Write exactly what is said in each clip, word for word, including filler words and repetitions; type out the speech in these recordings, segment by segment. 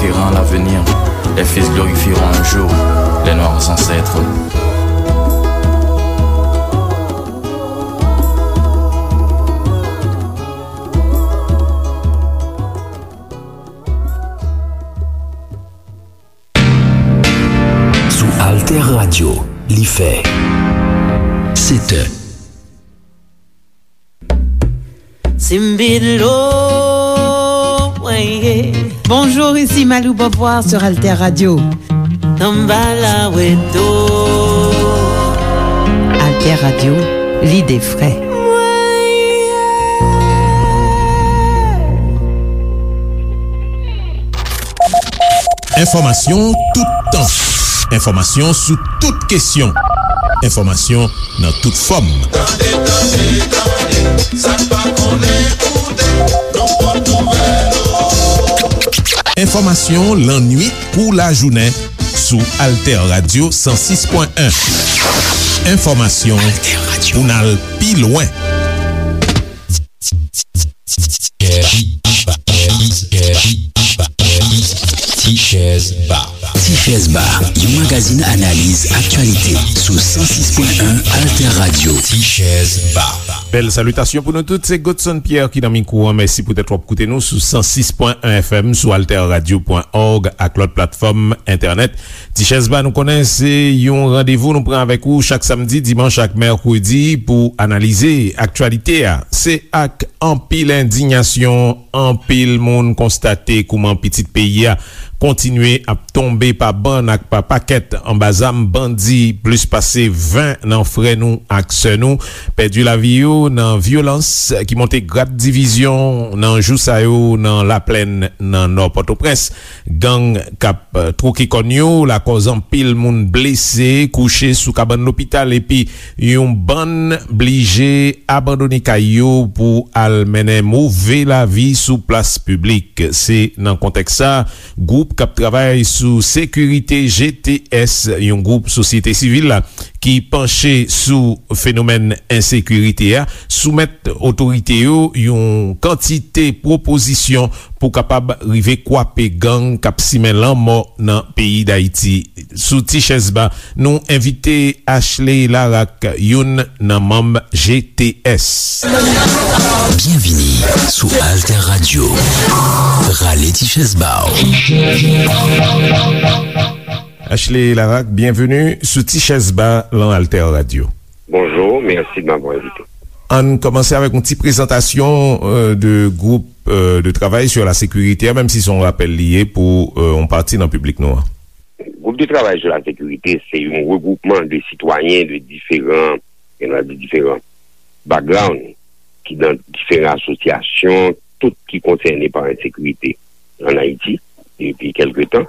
Espérant l'avenir, les fils glorifieront un jour les noirs ancêtres. Sou Alter Radio, li fè sèt è. Simbidlo, ouais, yeah. Bonjour, ici Malou Beauvoir sur Alter Radio. Samba la weto. Alter Radio, l'idée vraie. Enfòmasyon toutan. Enfòmasyon sou tout kesyon. Enfòmasyon nan tout fòm. Tande, tande, tande, sa n pa konnen koute, nou pot nouvèl ou. Enfòmasyon lannuit kou lajounen sou Alter Radio san sis pwen en. Enfòmasyon pou n al pi lwen. Ti Chèz Ba. Ti Chèz Ba, yon magazin analiz aktyalite sou san sis pwen en Alter Radio. Ti Chèz Ba. Bèl salitasyon pou nou tout, se Godson Pierre ki nan mikwo an. Mèsi poutèt w ap koute nou sou san sis pwen en F M, sou alter radio pwen org ak lòt platfòm entènèt. Ti Chèz Ba, nou konnen se yon randevou nou pran avèk ou chak samdi, dimanch ak mèkredi pou analize aktyalite a. Se ak anpil endiyasyon, anpil moun konstate kouman pitit peyi a kontinye ap tonbe pa bann ak pa pakèt anba zam bandi. Plis pase ven nan frè nou ak sè nou pèdi lavi yo nan vyolans ki monte grad divizyon nan jou sa yo nan Laplèn, nan Nò Pòtoprens. Gang k ap, eh, twoke kòn yo lakòz anpil moun blese, kouche sou kabann lopital, epi yon bann blije abandone kay yo pou al mennen move lavi sou plas piblik. Se nan kontèks sa, gwoup k ap travay sou sekirite, G T S, yon gwoup sosyete sivil la ki panche sou fenomèn ensekirite a, soumèt otorite yo yon kantite pwopozisyon pou kapab rive kwape gang k ap simen lanmò nan peyi Dayiti. Sou Ti Chèz Ba, nou envite Ashley Laraque, youn nan manm G T S. Byenvini sou Alter Radio. Rale ti chèz ba w. Ashley Laraque, byenveni sou Ti Chèz Ba lan Alter Radio. Bonjour, merci de m'avoir invité. Ann kòmanse avèk yon ti prezantasyon, euh, de groupe, euh, de travail sur la sécurité, menm si se yon rapèl li ye pou, euh, yon pati nan piblik nou an. Gwoup de travay sou la sekirite, se yon regwoupman de sitwayen de diferan, gen dwa di diferan background, ki nan diferan asosyasyon, tout ki konsène pa ensekirite ann Ayiti depi kèlke tan.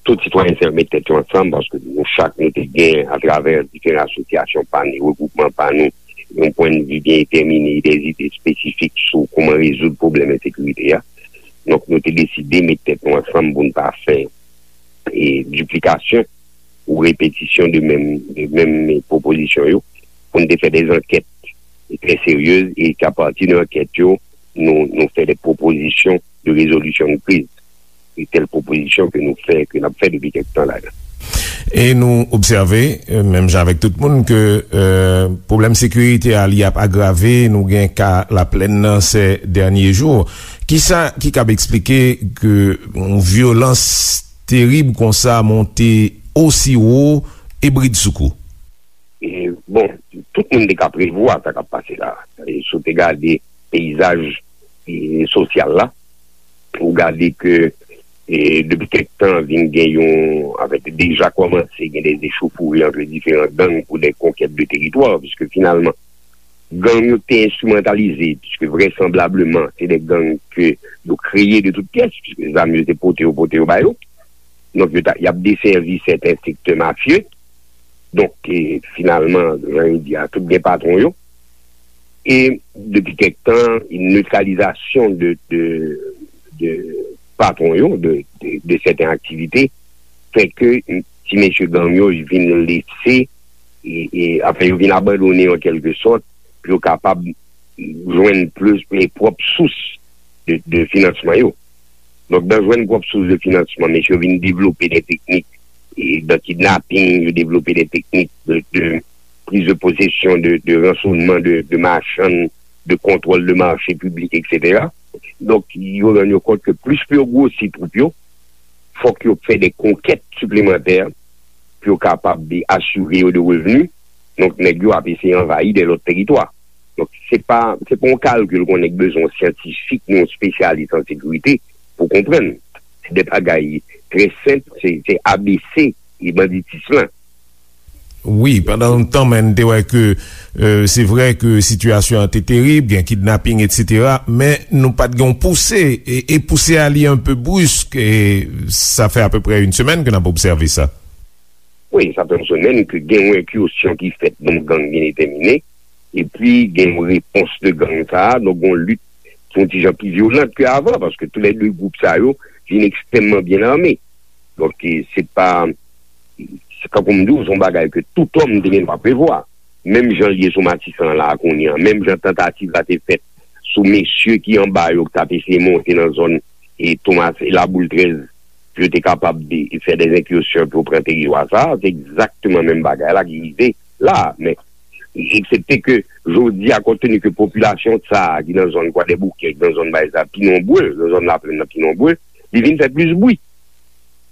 Tout sitwayen sa yo met tèt yo ansanm paske nou chak nou te gen, atravè diferan asosyasyon pa nou, regwoupman pa nou, yon pwennvi byen detèmine, de zide espesifik sou kòman rezoud pwoblèm ensekirite a. Donk, nou te deside met tèt nou ansanm pou n pa fè, e, diplikasyon ou repetisyon de menm, de menm pwopozisyon yo, pou n te fè de ankèt trè serye e ke apati de ankèt yo, nou, nou fè de pwopozisyon de rezolisyon de kriz. Se tèl pwopozisyon ke nou fè, ke n ap fè depi kèk tan la. E nou obsève, euh, menm jan avèk tout moun, ke, euh, pwoblèm sekirite a, li ap agrave. Nou gen ka Laplèn nan se dènye jou. Kisa ki kab eksplike ke yon vyolans terib konsa monte osi wo e bridsoukou? E, bon, tout moun te ka prevwa sa k ap pase la. E, si w te gade peyizaj, e, sosyal la, ou gade ke, e, depi kèk tan, vin gen yon, anfèt, deja kòmanse gen de echauffourées ant diferan gang pou de konkèt de teritwa, piske finalman, gang yo te enstrimantalize, piske vrèsanblableman, se de gang ke yo kreye de tout pyès, piske zam yo se pote yo, pote yo ba yo. Donk, yo ta, y ap desèvi sèten sektè mafye. Donk, e, finalman, jan yo di a, tout gen patwon yo. E depi kèk tan, netralizasyon de, de, de patwon yo, de, de, de sèten aktivite, fè ke ti mesye gang yo vin lese, e, e, anfen, yo vin abandone an kèlke sòt, pou yo kapab jwenn plis, e, pwòp sous de, de finansman yo. Donk, nan jwenn pwòp sous de finansman, mesye yo vin devlope de teknik e, de kidnaping, yo devlope de teknik de, de priz de posesyon, de, de ransonman de, de machann, de kontwòl de mache piblik, etsetera. Donk, yo rann yo kont ke plis pou yo gwosi twoup yo, fòk yo fè de konkèt siplemantè pou yo kapab asire yo de revni. Donk, nèg yo ap eseye anvayi de lòt teritwa. Donk, se pa, se pa yon kalkil ke yon nèg bezwen yon syantifik ni yon espesyalis an sekirite pou konprann. Se de bagay trè senp, se, se A B C e banditis lan. Wi, pandan yon tan, men n te wè ke, euh, se vre ke sitiyasyon an te terib, gen kidnaping, etsetera, men nou pa t gen yon pouse, e, e pouse a li enpe brisk, e sa fè apeprè yon semèn ke n ap obsève sa. Wi, sa fè yon semèn ke gen yon enkisyon ki fèt, yon gang byen detèmine, epi gen yon repons de gang sa a, donk yon lit ki yon ti jan pi vyolant ke avan, paske toulède gwoup sa yo vin ekstrèmman byen ame. Donk, e, se pa, se kankou m di w, se yon bagay ke tout òm te gen dwa prevwa. Menm jan l ye sou Matisan an la a kounye a, menm jan tantativ la te fèt sou mesye ki anba yo, ki t ap eseye monte nan zòn e Tomas e Laboul trèz, pou yo te kapab de, fè de enkisyon pou yo pran teritwa sa a, se egzakteman menm bagay la ki rive la a. Men, eksepte ke jodi a, kont teni ke popilasyon sa a ki nan zòn Kwadèboukè, ki nan zòn Bay sa a, pi nonbre, nan zòn Laplèn nan pi nonbre, li vin fè plis bri.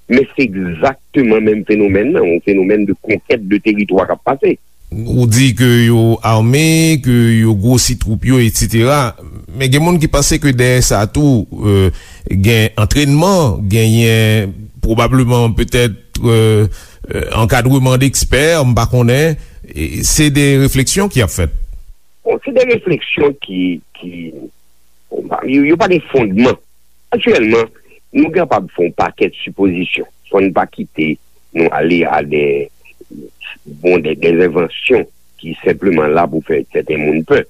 Men se egzakteman menm fenomèn nan, yon fenomèn de konkèt de teritwa k ap pase. Ou di ke yo ame, ke yo gwosi twoup yo, etsetera. Men gen moun ki panse ke dèyè sa tou, euh, gen antrènman, genyen pwobableman petèt, euh, euh, ankadreman dekspè, m pa konnen. E se de refleksyon ki ap fèt. Bon, se de refleksyon ki, ki, bon, pa- yo, yo pa gen fondman. Aktyèlman, nou kapab fè yon pakèt sipozisyon, san n pa kite nou ale a de, bon, de, de envansyon ki senpleman la pou fè sèten moun pè.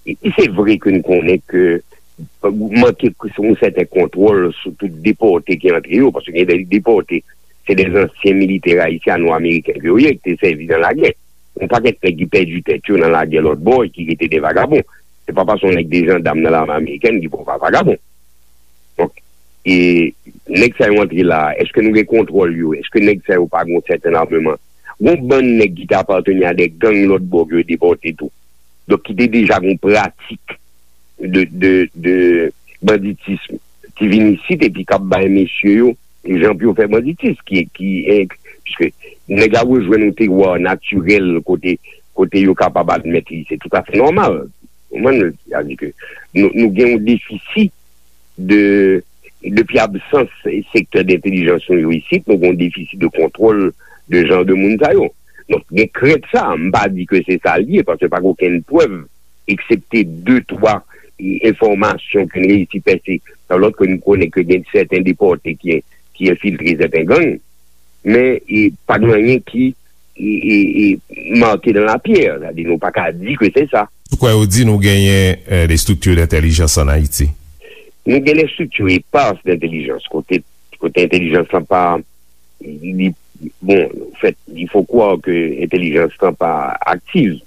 E, e se vre ke n konnen ke, euh, manke yon sèten kontwòl sou tout depòte ki antre yo, paske gen de depòte, se de ansyen militè ayisyano-ameriken ke yo ye, ki te sèvi nan lagè. Yon pakèt nèg ki pèdi tèt yo nan lagè lòt bò e ki rete de vagabon. Se pa paske yon nèg de jandam nan lame amerikèn ki pa yon vagabon. Donk, e nèg sa yo antre la a, èske nou gen kontwòl yo? Èske nèg sa yo pa gen yon sèten ameman? Gon bann nèg ki te apateni a de gang lòt bò ke yo depòte tou. Donk, ki te deja gen yon pratik de, de, de banditism ki vin isit epi k ap bay mesye yo jan pou yo fè banditis, ki, ki, eh, piske nèg la rejwenn yon terwa natirèl kote, kote yo kapab admèt li, se toutafè nòmal. Ou konprann? Sa di ke nou, nou gen yon defisi de, depi absans sektè dentèlijans nou yo isit, nou gen yon defisi de kontwòl de jan de moun sa yo. Donk, gen krent sa, m pa di ke se sa l ye, paske pa gen okenn prèv, eksepte de, twa, e, enfòmasyon ke n reyisi pèse nan lòt ke n konnen ke gen sèten depòte ki, ki enfiltre sèten gang, men, e, pa gen anyen ki, e, e, e, marqué dans la pierre, sa di nou pa ka di ke se sa. Ou kwè yo di nou genyen, eh, de estrikti dentèlijans ann Ayiti? Nou gen de estrikti epas dentèlijans, kote, kote entèlijans lan pa, li, bon, en fait, il faut croire que entèlijans lan pa aktiv,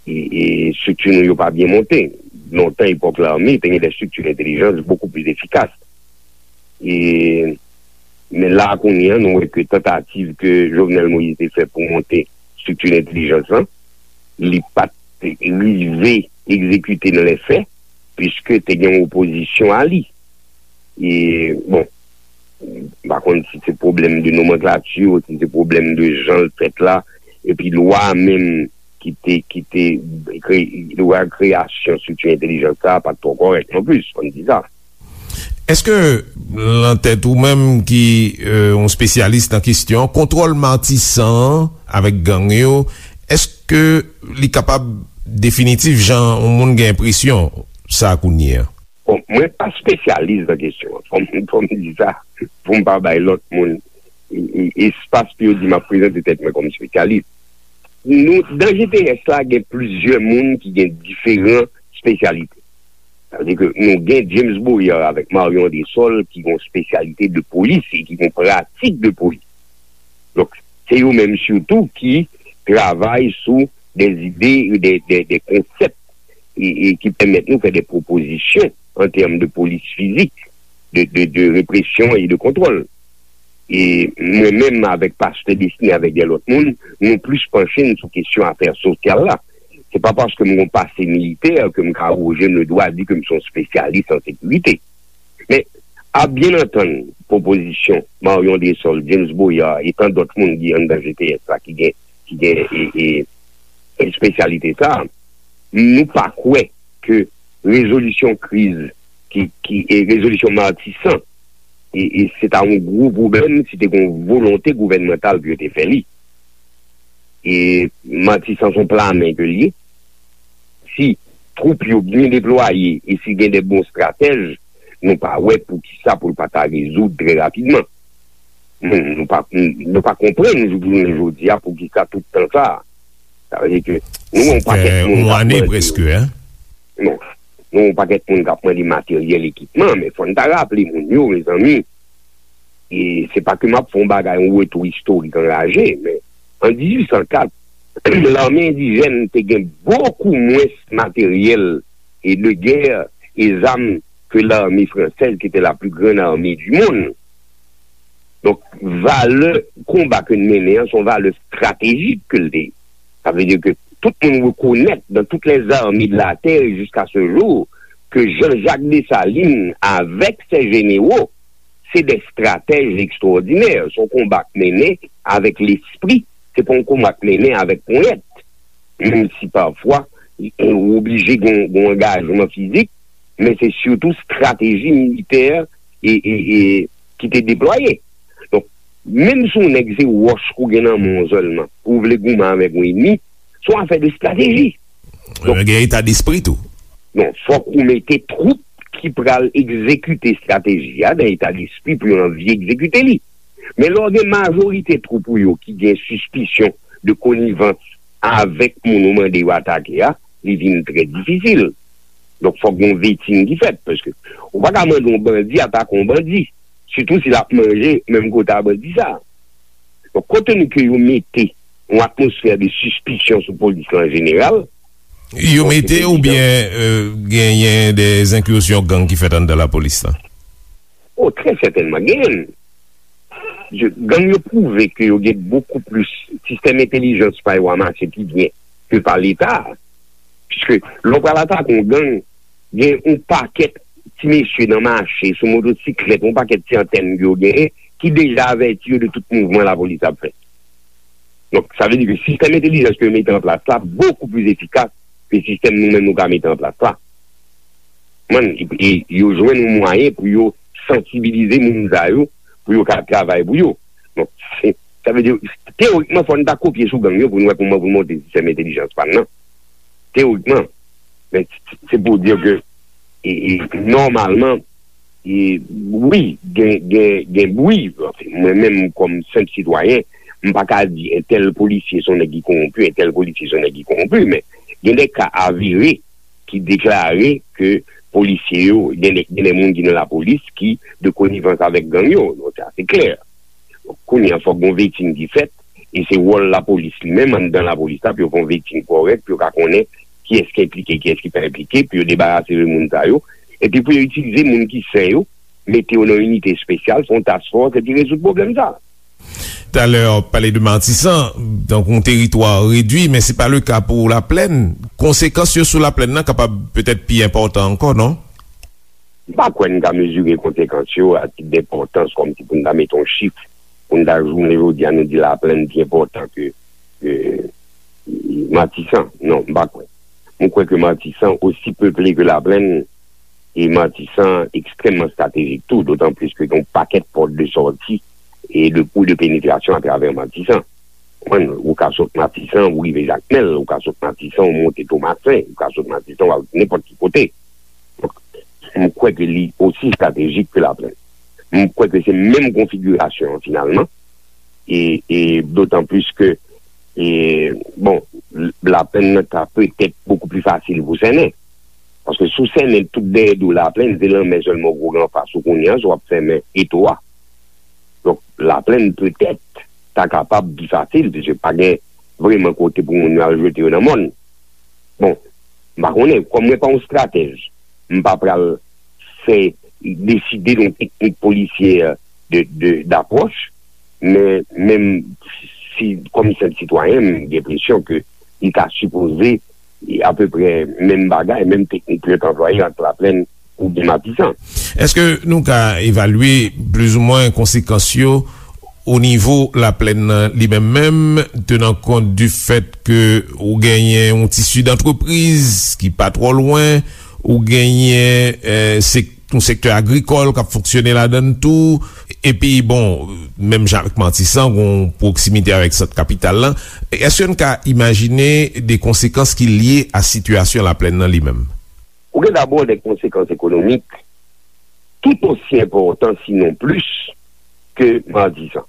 e, e estrikti nou yo pa byen monte. Lontan, epòk lame, te gen de estrikti dentèlijans beaucoup plus efficaces. E, men la, kounye a, nou wè ke tantativ ke Jovenel Moïse te fè pou monte estrikti dentèlijans lan, li pa t rive egzekite nan lè fè, piske te gen yon opozisyon a li. E, bon, m pa konn si se pwoblèm de nomanklati, si se pwoblèm de jan l fèt la, epi lwa menm ki te, ki te kre-, lwa kreyasyon estrikti entèlijans sa a pa t twò kòrèk non plis, fò n di sa. Èske, lan tèt ou menm ki, euh, yon espesyalis nan kesyon, kontwòl Matisan an avèk gang yo, èske li kapab definitif jan yon moun gen enpresyon sa kounye a? Bon, mwen pa espesyalis nan kesyon an. Fò m, fò m di sa, pou m pa bay lòt moun, e, e, espas pou yo di m ap prezante tèt mwen kòm espesyalis. Nou, nan G T S la, gen plizyè moun ki gen diferan espesyalite. Sa vle di ke nou gen James Boyer avèk Marion Andrésol ki gen yon espesyalite de polis e ki gen yon pratik de polis. Donk, se yo menm sitou ki travay sou de zide, de, de, de konsèp e, e ki pèmèt nou fè de pwopozisyon an tèm de polis fizik. de, de, de represyon e de kontwòl. E mwen menm avèk pastè Destiné, avèk de lòt moun, nou plis panche n sou kesyon afè sosyal la. Se pa paske m gon pase militè ke m ka awoje m le dwa di ke m se yon espesyalis an sekirite. Men, a byen antann pwopozisyon Marion Dessol, James Boyard e tan dòt moun ki anndan G T S la ki gen, ki gen e, e, espesyalite sa, nou pa kwè ke rezolisyon kriz, ki, ki, e rezolisyon Matisan, e, e se ta yon gwo pwoblèm si te gen yon volonte gouvènmantal pou yo te fè li. E Matisan se yon plamen ke l ye. Si twoup yo byen deplwaye e si gen de bon estratèj, nou pa wè poukisa pou l pa ta rezoud trè rapidman. Nou, nou pa, nou pa konprann jouk jounen jodi a poukisa tout tan sa a. Sa vle di ke nou gen yon pakèt moun k ap mande, non, nou gen yon pakèt moun k ap mande materyèl, ekipman, men fò n ta raple moun yo, mezanmi, e se pa ke m ap fè yon bagay, yon retou istorik anraje, men an dizuit san kat, lame endijèn te gen bokou mwens materyèl e de gè e zam ke lame fransèz, ki te la pli grann ame di monn. Donk, valè konba ke n mennen an, se yon valè estratejik ke l te ye. Sa vle di ke tout moun rekonèt, dans toutes les armées de la terre jusqu'à ce jour, ke Jean-Jacques Dessalines avèk sè jenero, se de estratèj ekstwòdinè. Se yon konba k mennen avèk lespri, se pa yon konba k mennen avèk ponyèt. Menm si pafwa, ou oblije gen, gen yon angajman fizik, men se sitou estrateji militè e, e, e, ki te deplwaye. Donk, menm si yon nèg se wòch ou gen nan men w sèlman, ou vle goumen avèk yon ènmi, se yon afè de estrateji. Donk, gen eta despri tou. Non, fòk ou mete twoup ki pral egzekite estrateji a nan eta despri pou yo anvi egzekite li. Men lè w gen majorite twoup ou yo ki gen sispisyon de konivans avèk moun ou mande yo atake a, li vin trè difisil. Donk, fòk gen yon vetin ki fèt, paske ou pa ka mande yon bandi atake yon bandi, sitou si l ap manje menm kote a bandi sa a. Donk, konte nou ke yo mete yon atmosfè de sispisyon sou polis la an jeneral, yo mete oubyen, euh, genyen de enkizyon gang ki fèt anndan lapolis la? O, trè sètènman, genyen. Gang yo pwouve ke yo gen bokou plis, sistèm entèlijans pa yo a mache pi byen ke pa Leta. Piske lè w pral atake yon gang, gen yon pakèt ti mesye nan mache, sou motosiklèt, yon pakèt ti antèn ke yo genyen, ki deja avèti yo de tout mouvman lapolis ap fè. Donk, sa vle di ke sistèm entèlijans ke yo mete an plas la bokou plis efikas ke sistèm nou menm nou ka mete an plas la. Mwen, e, e yo jwenn yon mwayen pou yo sansibilize moun sa yo, pou yo ka travay pou yo. Donk, se, sa vle di, teyorikman, fò n ta kopye sou gang yo pou n wè kòman pou n monte sistèm entèlijans pa n nan. Teyorikman. Men, se pou di ke, e, e, nòmalman, e, wi, gen, gen, gen bri. Anfen, mwen menm, kòm senp sitwayen, m pa ka di entèl polisye se yon nèg ki kowonpi, entèl polisye se yon nèg ki kowonpi, men gen de ka avere ki deklare ke polisye yo, gen de, gen de moun ki nan lapolis ki de konivans avèk gang yo. Donk, sa se klè. Kounye a, fòk gon vetin ki fèt, e se wòl lapolis li menm, anndan lapolis la, pou yo fè yon vetin kòrèk, pou yo ka konnen kiyès ki enplike, kiyès ki pa enplike, pou yo debarase de moun sa yo, epi pou yo itilize moun ki sen yo, mete yo nan inite espesyal, fè yon task force, epi rezoud pwoblèm sa. Talè, w pale de Matisan, donk yon teritwa redwi, men se pa le ka pou Laplèn. Konsekans yo sou Laplèn nan kapab petèt pi enpòtan ankò, non? M pa kwè n ka mezire konsekans yo a tit denpòtans, kòmsi pou n ta mete yon chif, pou n ta jounen jodi a nou di Laplèn pi enpòtan ke, ke Matisan. Non, m pa kwè. Mwen kwè ke Matisan osi peple ke Laplèn, e Matisan ekstrèmman estratejik tou, dotan plis ke gen yon pakèt pòt de sòti e de kou de penetrasyon atravè Matisan. Konprann? Ou ka sot Matisan, ou rive Jakmèl, ou ka sot Matisan, ou monte Tomasen, ou ka sot Matisan, ou al nenpòt ki kote. Donk, m kwè ke li osi estratejik ke Laplèn. M kwè ke se menm konfigirasyon an finalman. E, e dotan plis ke, e, bon, Laplèn nan ta petèt bokou pli fasil pou sènen. Paske si w sènen tout dèyè do Laplèn, se lanmè sèlman w gen anfas ou kounye a, si w ap fèmen eto a. Donk, Laplèn petèt ta kapab pi fasil, piske pa gen vrèman kote pou moun yo al jete yo nan mòn. Bon, m pa konnen, kòm mwen pa yon estratèj, m pa pral fè deside yon teknik polisyè de, de, d'apwòch, men menm si, kòm senp sitwayen, m gen enpresyon ke li ta sipoze apeprè menm bagay, menm teknik pou yo t anplwaye ant Laplèn oubyen Matisan. Èske nou ka evalye plizoumwen konsekans yo o nivo Laplèn nan li menm menm, tenan kont di fèt ke ou genyen yon tisi dantrepriz ki pa twò lwen, ou genyen, eh, sek-, yon sektè agrikòl k ap fonksyone ladan l tou, epi, bon, menm jan avèk Matisan, gen yon pwoksimite avèk sant kapital la. Èske n ka imajine de konsekans ki lye a sitiyasyon Laplèn nan li menm? Ou gen dabò de konsekans ekonomik tout osi enpòtan, sinon plis, ke Matisan.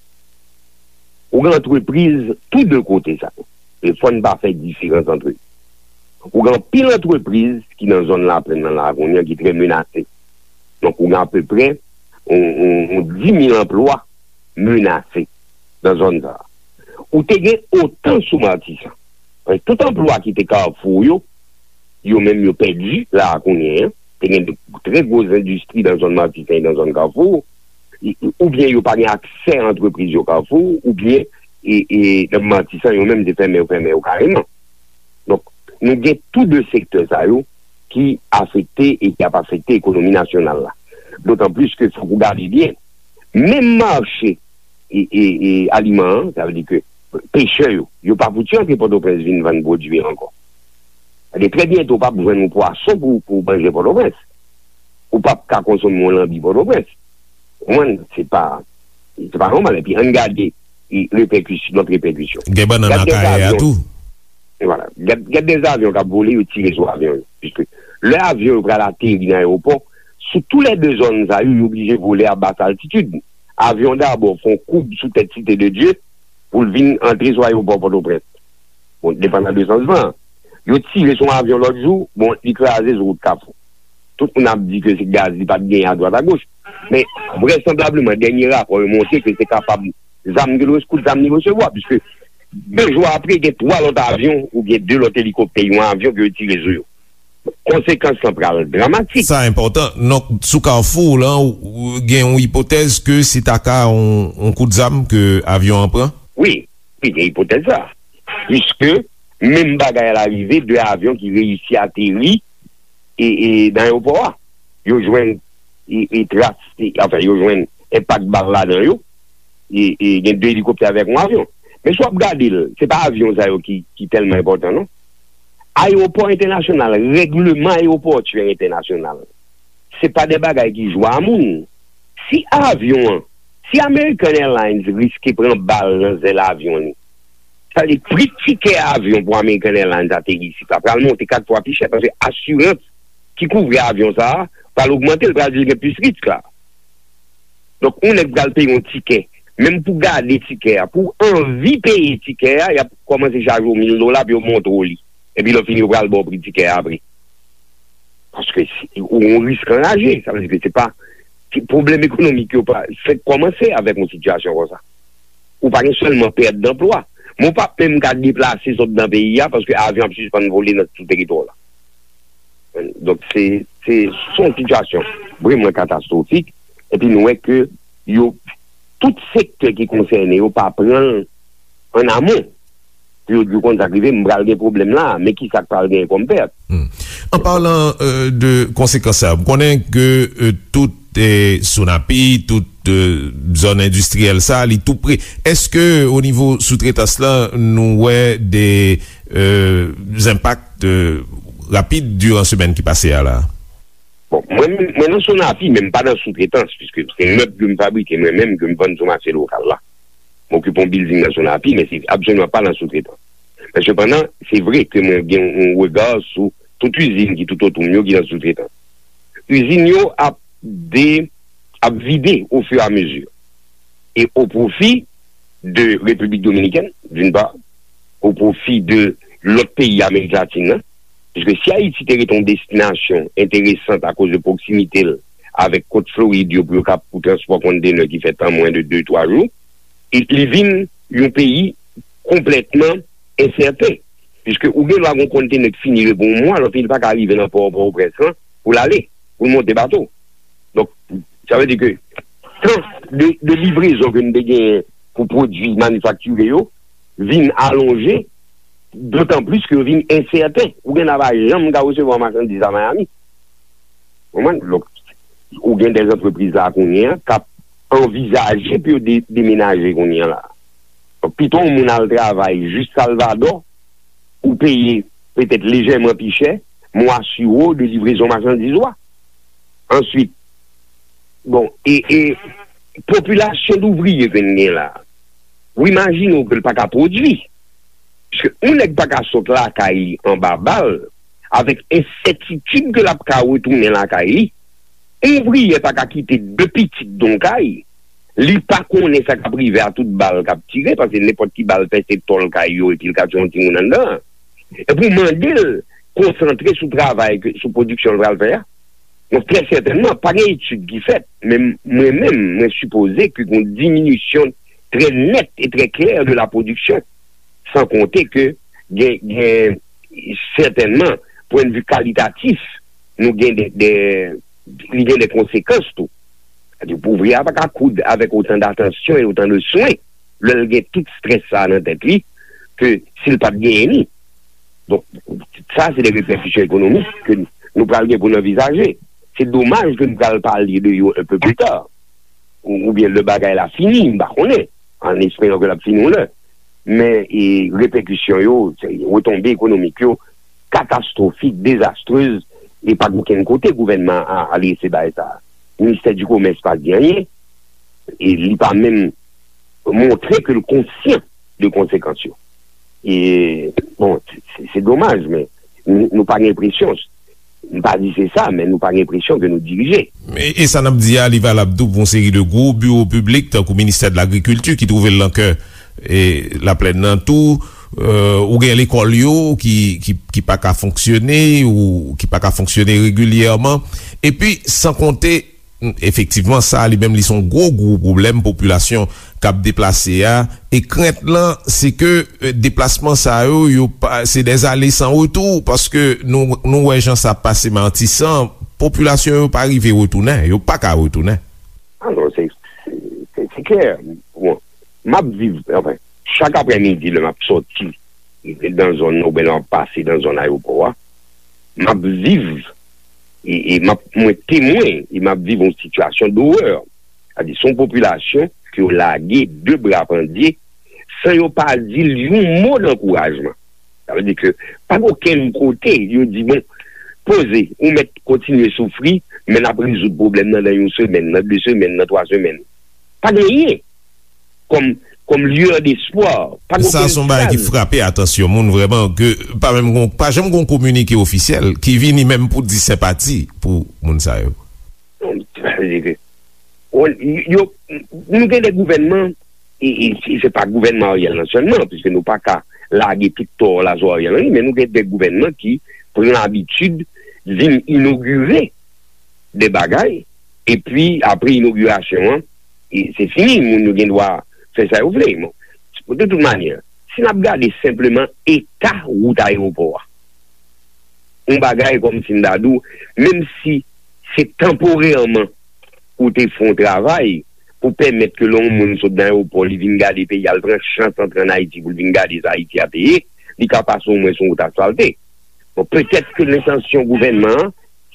Ou gen antrepriz tou de kote sa yo. E fò n pa fè diferans ant yo. Ou gen anpil antrepriz ki nan zòn Laplèn nan la kounye a ki trè menase. Donk, ou gen apeprè yon, yon, yon dis mil anplwa menase nan zòn sa a. Ou te gen otan sou Matisan. Paske tout anplwa ki te Kafou yo, yo menm yo pèdi la a kounye a. Te gen de trè gwo endistri nan zòn Matisan e nan zòn Kafou, oubyen yo pa gen aksè a antrepriz yo Kafou, oubyen e, e, nan Matisan yo menm se fèmen yo fèmen yo kareman. Donk, nou gen tou de sektè sa yo ki afekte e ki ap afekte ekonomi nasyonal la. Dotan plis ke fòk ou gade byen, menm mache e, e, e aliman an, sa vle di ke pechè yo, yo pa fouti antre Pòtoprens vin vann pwodui yo ankò. Sa vle di trè byento w p ap jwenn yon pwason pou, pou manje Pòtoprens. Ou p ap ka konsome yon lanbi Pòtoprens. Ou konprann? Se pa, se pa nòmal. Epi ann gade e, repèkis-, lòt repèkisyon. Gen bannann Gad dèz akayè a avyon. Tou. Vwala. Gad, gad dèz avyon k ap vole, yo tire sou avyon yo. Piske lè avyon yo pral ateri nan ayewopò, sou tou lè de zòn sa yo, yo oblije vole a bas altitid. Avyon dabò fè yon koub sou tèt Site de Dye pou l vin antre sou ayewopò Pòtoprens. Bon, depandan de sans van an. Yo tire sou yon avyon lòt jou, bon, li kraze sou wout Kafou. Tout moun ap di ke se gaz li pa t genyen adwat agoch. Men, vrèsanblableman, dènye rapò yo montre ke se kapab zam ke l res-, kout zam li resevwa, piske de jou apre, gen twa lòt avyon oubyen de lòt elikoptè, yon avyon ke yo tire sou yo. Konsekans lan pral dramatik. Sa enpòtan. Donk, sou Kafou la, ou, ou gen yon ipotèz ke se ta ka yon, yon kout zam ke avyon an pran? Wi, wi, gen ipotèz sa. Piske menm bagay la rive, de avyon ki reyisi ateri e, e nan ayewopò a. Yo jwenn e, e tras, e, anfen, yo jwenn enpak bal ladan yo. E, e gen de elikoptè avèk yon avyon. Men si w ap gade l, se pa avyon sa yo ki, ki tèlman enpòtan, non. Ayewopò entènasyonal, règleman ayewopòtyè entènasyonal, se pa de bagay ki jwe a moun. Si avyon an, si American Airlines riske pran bal nan zèl avyon li, sa vle di pri tikè avyon pou American Airlines ateri isit la pral monte kat fwa pi chè, paske asirans ki kouvri avyon sa a pral ogmante, l pral di l gen plis risk la. Donk, yon nèg pral peye yon tikè, menm pou gade tikè a, pou w anvi peye tikè a, y ap kòmanse chaje w mil dola pou yo montre w li. Epi lè w fini, yo pral ba w pri tikè a apre. Paske se, ou yon risk anraje, sa vle di ke se pa, se pwoblèm ekonomik yo pa fèk kòmanse avèk yon sitiyasyon konsa. Ou pa gen sèlman pèt danplwa, men w p ap menm ka deplase sot nan peyi a paske avyon ap sispann vole nan sou teritwa w la. Donk, se, se, se yon sitiyasyon vrèman katastwofik. Epi nou wè ke yo, tout sektè ki konsène yo pa pran l an amon. Pou yo di w konn sa k rive, m pral gen pwoblèm la, men ki sa k pral genyen kòm pèt. Hmm. An palan, euh, de konsekans sa, m konnen ke, euh, tout, eh, Sonapi, tout, euh, zòn endistriyèl sa, li tou pre. Èske o nivo soutretans la, nou wè de, euh, enpak, euh, rapid diran semèn ki pase a la? Bon, mwen, mwen nan Sonapi, men m pa nan soutretans, piske se mèb ke m fabrike mwen menm, ke m vann sou mache lokal la. M okipe yon bilding nan Sonapi, men se absoliman pa nan soutretans. Men sepandan, se vre ke mwen gen yon rega sou tout izin ki tout otou m yo ki nan soutretans. Izin yo ap de, ap vide ofirameziman. E o pwofi de Repiblik Dominikèn, d'une part, o pwofi de lòt peyi Amerik Latin nan, piske si Ayiti te rete yon destinasyon enteresan akoz de pwoksimite l avèk kot Florid yo pou yo kap pou transpò kontenè ki fèt an mwen de de, twa jou, e li vin yon peyi konplètman ensèten, piske ou gen dwa gen yon kontenè ki fini repo yon mwa, lòt li pa ka rive nan pò Pòtoprens lan pou l ale, pou l monte bato. Donk, Sa vle di ke tan de, de livrezon ke nou te genyen pou pwodui manifaktire yo vin alonje, dotan plis ke yo vin ensèten. Ou gen nan pa janm ka resevwa machandiz a Miami. Konprann? Donk, ou gen de antrepriz la kounye a k ap anvizaje pou yo de, demenaje kounye a la. Donk, pito yon moun al travay jis Salvadò, ou peye petèt lejèman pi chè, men w asire w de livrezon machandiz ou a. Answit, bon, e, e popilasyon douvriye ke n gen la, ou imajine w ke l pa ka pwodui. Paske yon nèg pa ka sot lakay li anba bal, avèk ensètitid ke l ap ka retounen lakay li. Yon ouvriyè pa ka kite de pitit nan yon kay, li pa konnen sa k ap rive a tout bal k ap tire, paske nenpòt ki bal pèse tòl kay yo epi l ka tiye yon timoun anndan an. Epi w mande l konsantre sou travay, ke, sou pwodiksyon l pral fè a. Donk, trè sètènman, pa gen etid ki fèt, men mwen menm, mwen sipoze ke gen yon diminisyon trè nèt e trè klè de la pwodiksyon. San konte ke gen, gen sètènman, pwennvi kalitatif, nou gen de, de, li gen de konsekans tou. Sètadi, ouvriye a pa ka koud avèk otan datansyon e otan de swen lè l gen tout strès sa a nan tèt li ke si l pa t genyen li. Donk, sa, se de repèkisyon ekonomik ke nou pral gen pou n anvizaje. Se domaj ke nou pral pale de yo un peu plus tard. Ou, oubyen lè bagay la fini, m pa konnen, an esperan ke l ap fini yon lè. Men, e, repèkisyon yo, se, retonbe ekonomik yo, katastwofik, dezastrez, e pa gen okenn kote gouvènman a adrese bagay sa a. Ministè di Komès pa di anyen, e li pa menm montre ke l konsyan de konsekans yo. E, bon, se, se domaj, men nou, nou pa gen enpresyon, m pa di se sa, men nou pa gen enpresyon ke nou dirije. E, e sa n ap di a, li valab tou pou yon seri de gwo biwo piblik, tankou Ministè de Lagrikilti, ki twouve l nan kè, e, Laplèn nan tou. E, ou gen lekòl yo ki, ki, ki pa ka fonksyone, ou ki pa ka fonksyone regilyèman. Epi, san konte, efektivman, sa a li menm, li se yon gwo, gwo pwoblèm popilasyon k ap deplase a. E krent lan, se ke, e, deplasman sa yo, yo pa, se des allers sans retour, paske nou, nou wè jan sa ap pase Matisan, popilasyon yo pa rive retounen, yo pa ka retounen. Alò, se, se, se, se klè. Bon, m ap viv, anfen, chak aprèmidi, lè m ap sòti nan zòn nan, oubyen lè m ap pase nan zòn ayewopò a, m ap viv, e, e m ap, mwen temwen, e m ap viv yon sitiyasyon dowè. Sètadi, se yon popilasyon ke yo lage de bra pandye, san yo pa di l yon mo dankourajman. Sa vle di ke pa gen okenn kote yo di, bon, poze, ou mèt kontinye soufri, men n ap rezoud pwoblèm nan nan yon semèn, nan de semèn, nan twa semèn. Pa gen anyen kòm, kòm lueur d'espoir. Pa gen okenn fraz. Sa se yon bagay ki frape atansyon moun vrèman, ke pa menm gon, pa janm gon kominike ofisyèl ki vini menm pou di senpati pou moun sa yo. Sa vle di ke, bon, yo, nou gen de gouvènman, e, e, se, se pa gouvènman Ariel nan sèlman, piske nou pa ka lage tout tò la sou Ariel Henry, men nou gen de gouvènman ki pran abitid vin inogire de bagay, epi apre inogirasyon an, e, se fini, moun yo gen dwa fè sa yo vle. Bon, de tout manyè, si n ap gade senpleman eta wout ayewopò a, yon bagay kòmsi m ta di w, menm si se tanporèman ou te fè yon travay pou pèmèt ke lè yon moun sot nan ayewopò, li vin gade peyi a, l pran chans antre ann Ayiti pou l vin gade sa Ayiti ap ye, li ka pase omwen sou yon wout asfalte. Bon, petèt ke lentansyon gouvènman an,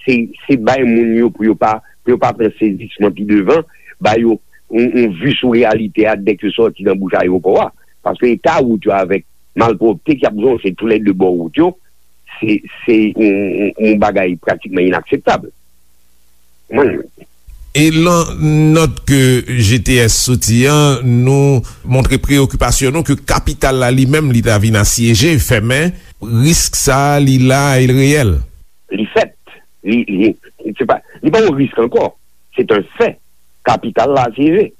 se, se bay moun yo pou yo pa, pou yo pa pran sezisman pi devan, ba yo yon, yon vi sou reyalite a dèk yo sòti nan bouch ayewopò a. Paske eta wout yo avèk malpwòpte k ap zonje toulède bò wout yo, se, se yon, yon, yon bagay pratikman inakseptab. Mwen, e lan nòt ke G T S soti an, nou montre preyokipasyon nou ke kapital la li menm, li ta vin asyeje, fèmen. Risk sa a, li la e l reyèl. Li fèt. Li, li, se pa, li pa yon risk ankò. Se yon fè. Kapital la asyeje.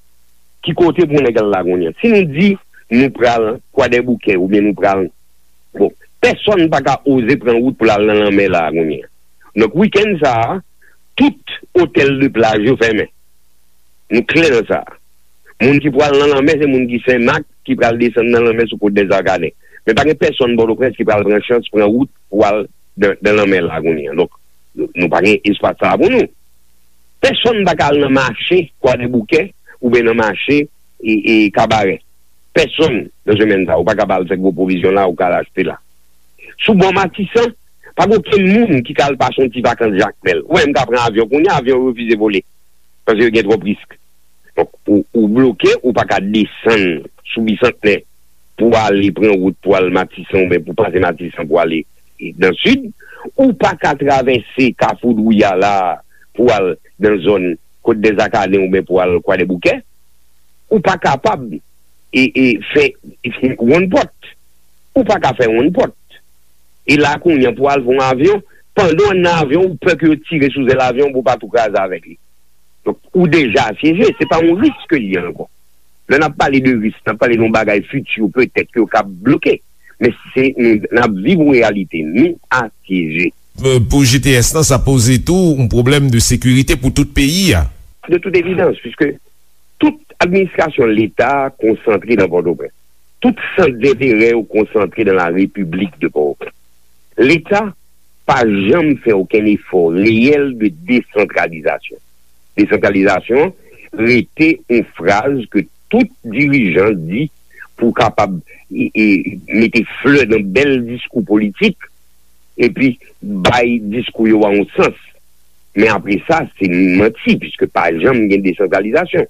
Ki kote pou nèg al la kounye a? Si nou di nou pral Kwadèboukè oubyen nou pral, bon, pèsonn pa ka oze pran wout pou l al nan lanmè la kounye a. Donk, wikenn sa a, tout otèl de plaj yo fèmen. Nou klè nan sa. Moun ki pral nan lanmè, se moun ki Senmak, ki pral desann nan lanmè sou Côte des Arcadins. Men pa gen pèsonn Pòtoprens ki pral pran chans pran wout pou al nan, nan lanmè la kounye a. Donk, nou, nou pa gen espas sa a pou nou. Pèsonn pa ka al nan mache Kwadèboukè oubyen nan mache e, e Kabarè. Pèsonn nan semèn sa, ou pa ka al fè gwo pwovizyon la, ou ka al achte la. Sou bò Matisan, pa gen okenn moun ki ka al pase yon ti vakans Jakmèl. Ou wè, m ka pran avyon kounye a, avyon yo refize vole. Paske yo gen twòp risk. Donk, ou, ou bloke, ou pa ka desann sou Bisantnè pou ale pran wout pou al Matisan oubyen pou pase Matisan pou ale nan sid. Ou pa ka travèse Kafou Dwouya la pou al nan zòn Côte des Acadiens oubyen pou al Kwadèboukè. Ou pa kapab e, e fè wonn pòt. Ou pa ka fè wonn pòt. E la kounye a pou al pran yon avyon, pandan w nan avyon, ou pè ke yo tire sou zèl avyon pou w pa tou kraze avèk li. Donk, ou deja asyeje, se pa yon risk ke l ye ankò. Lè n ap pale de risk, n ap pale de yon bagay fiti, petèt ke yo ka bloke. Men se, nou, n ap viv yon reyalite, nou asyeje. Euh, pou G T S lan, sa poze tou yon pwoblèm de sekirite pou tout peyi a. De tout evidans, puiske tout administrasyon Leta konsantre nan Pòtoprens. Tout sant denterè yo konsantre nan la République de Port-au-Prince. Leta pa janm fè okenn efò reyèl de desantralizasyon. Desantralizasyon rete yon fraz ke tout dirijan di pou kapab e, e, mete flè nan bèl diskou politik, epi bay diskou yo a yon sans. Men apre sa, se manti, piske pa janm gen desantralizasyon.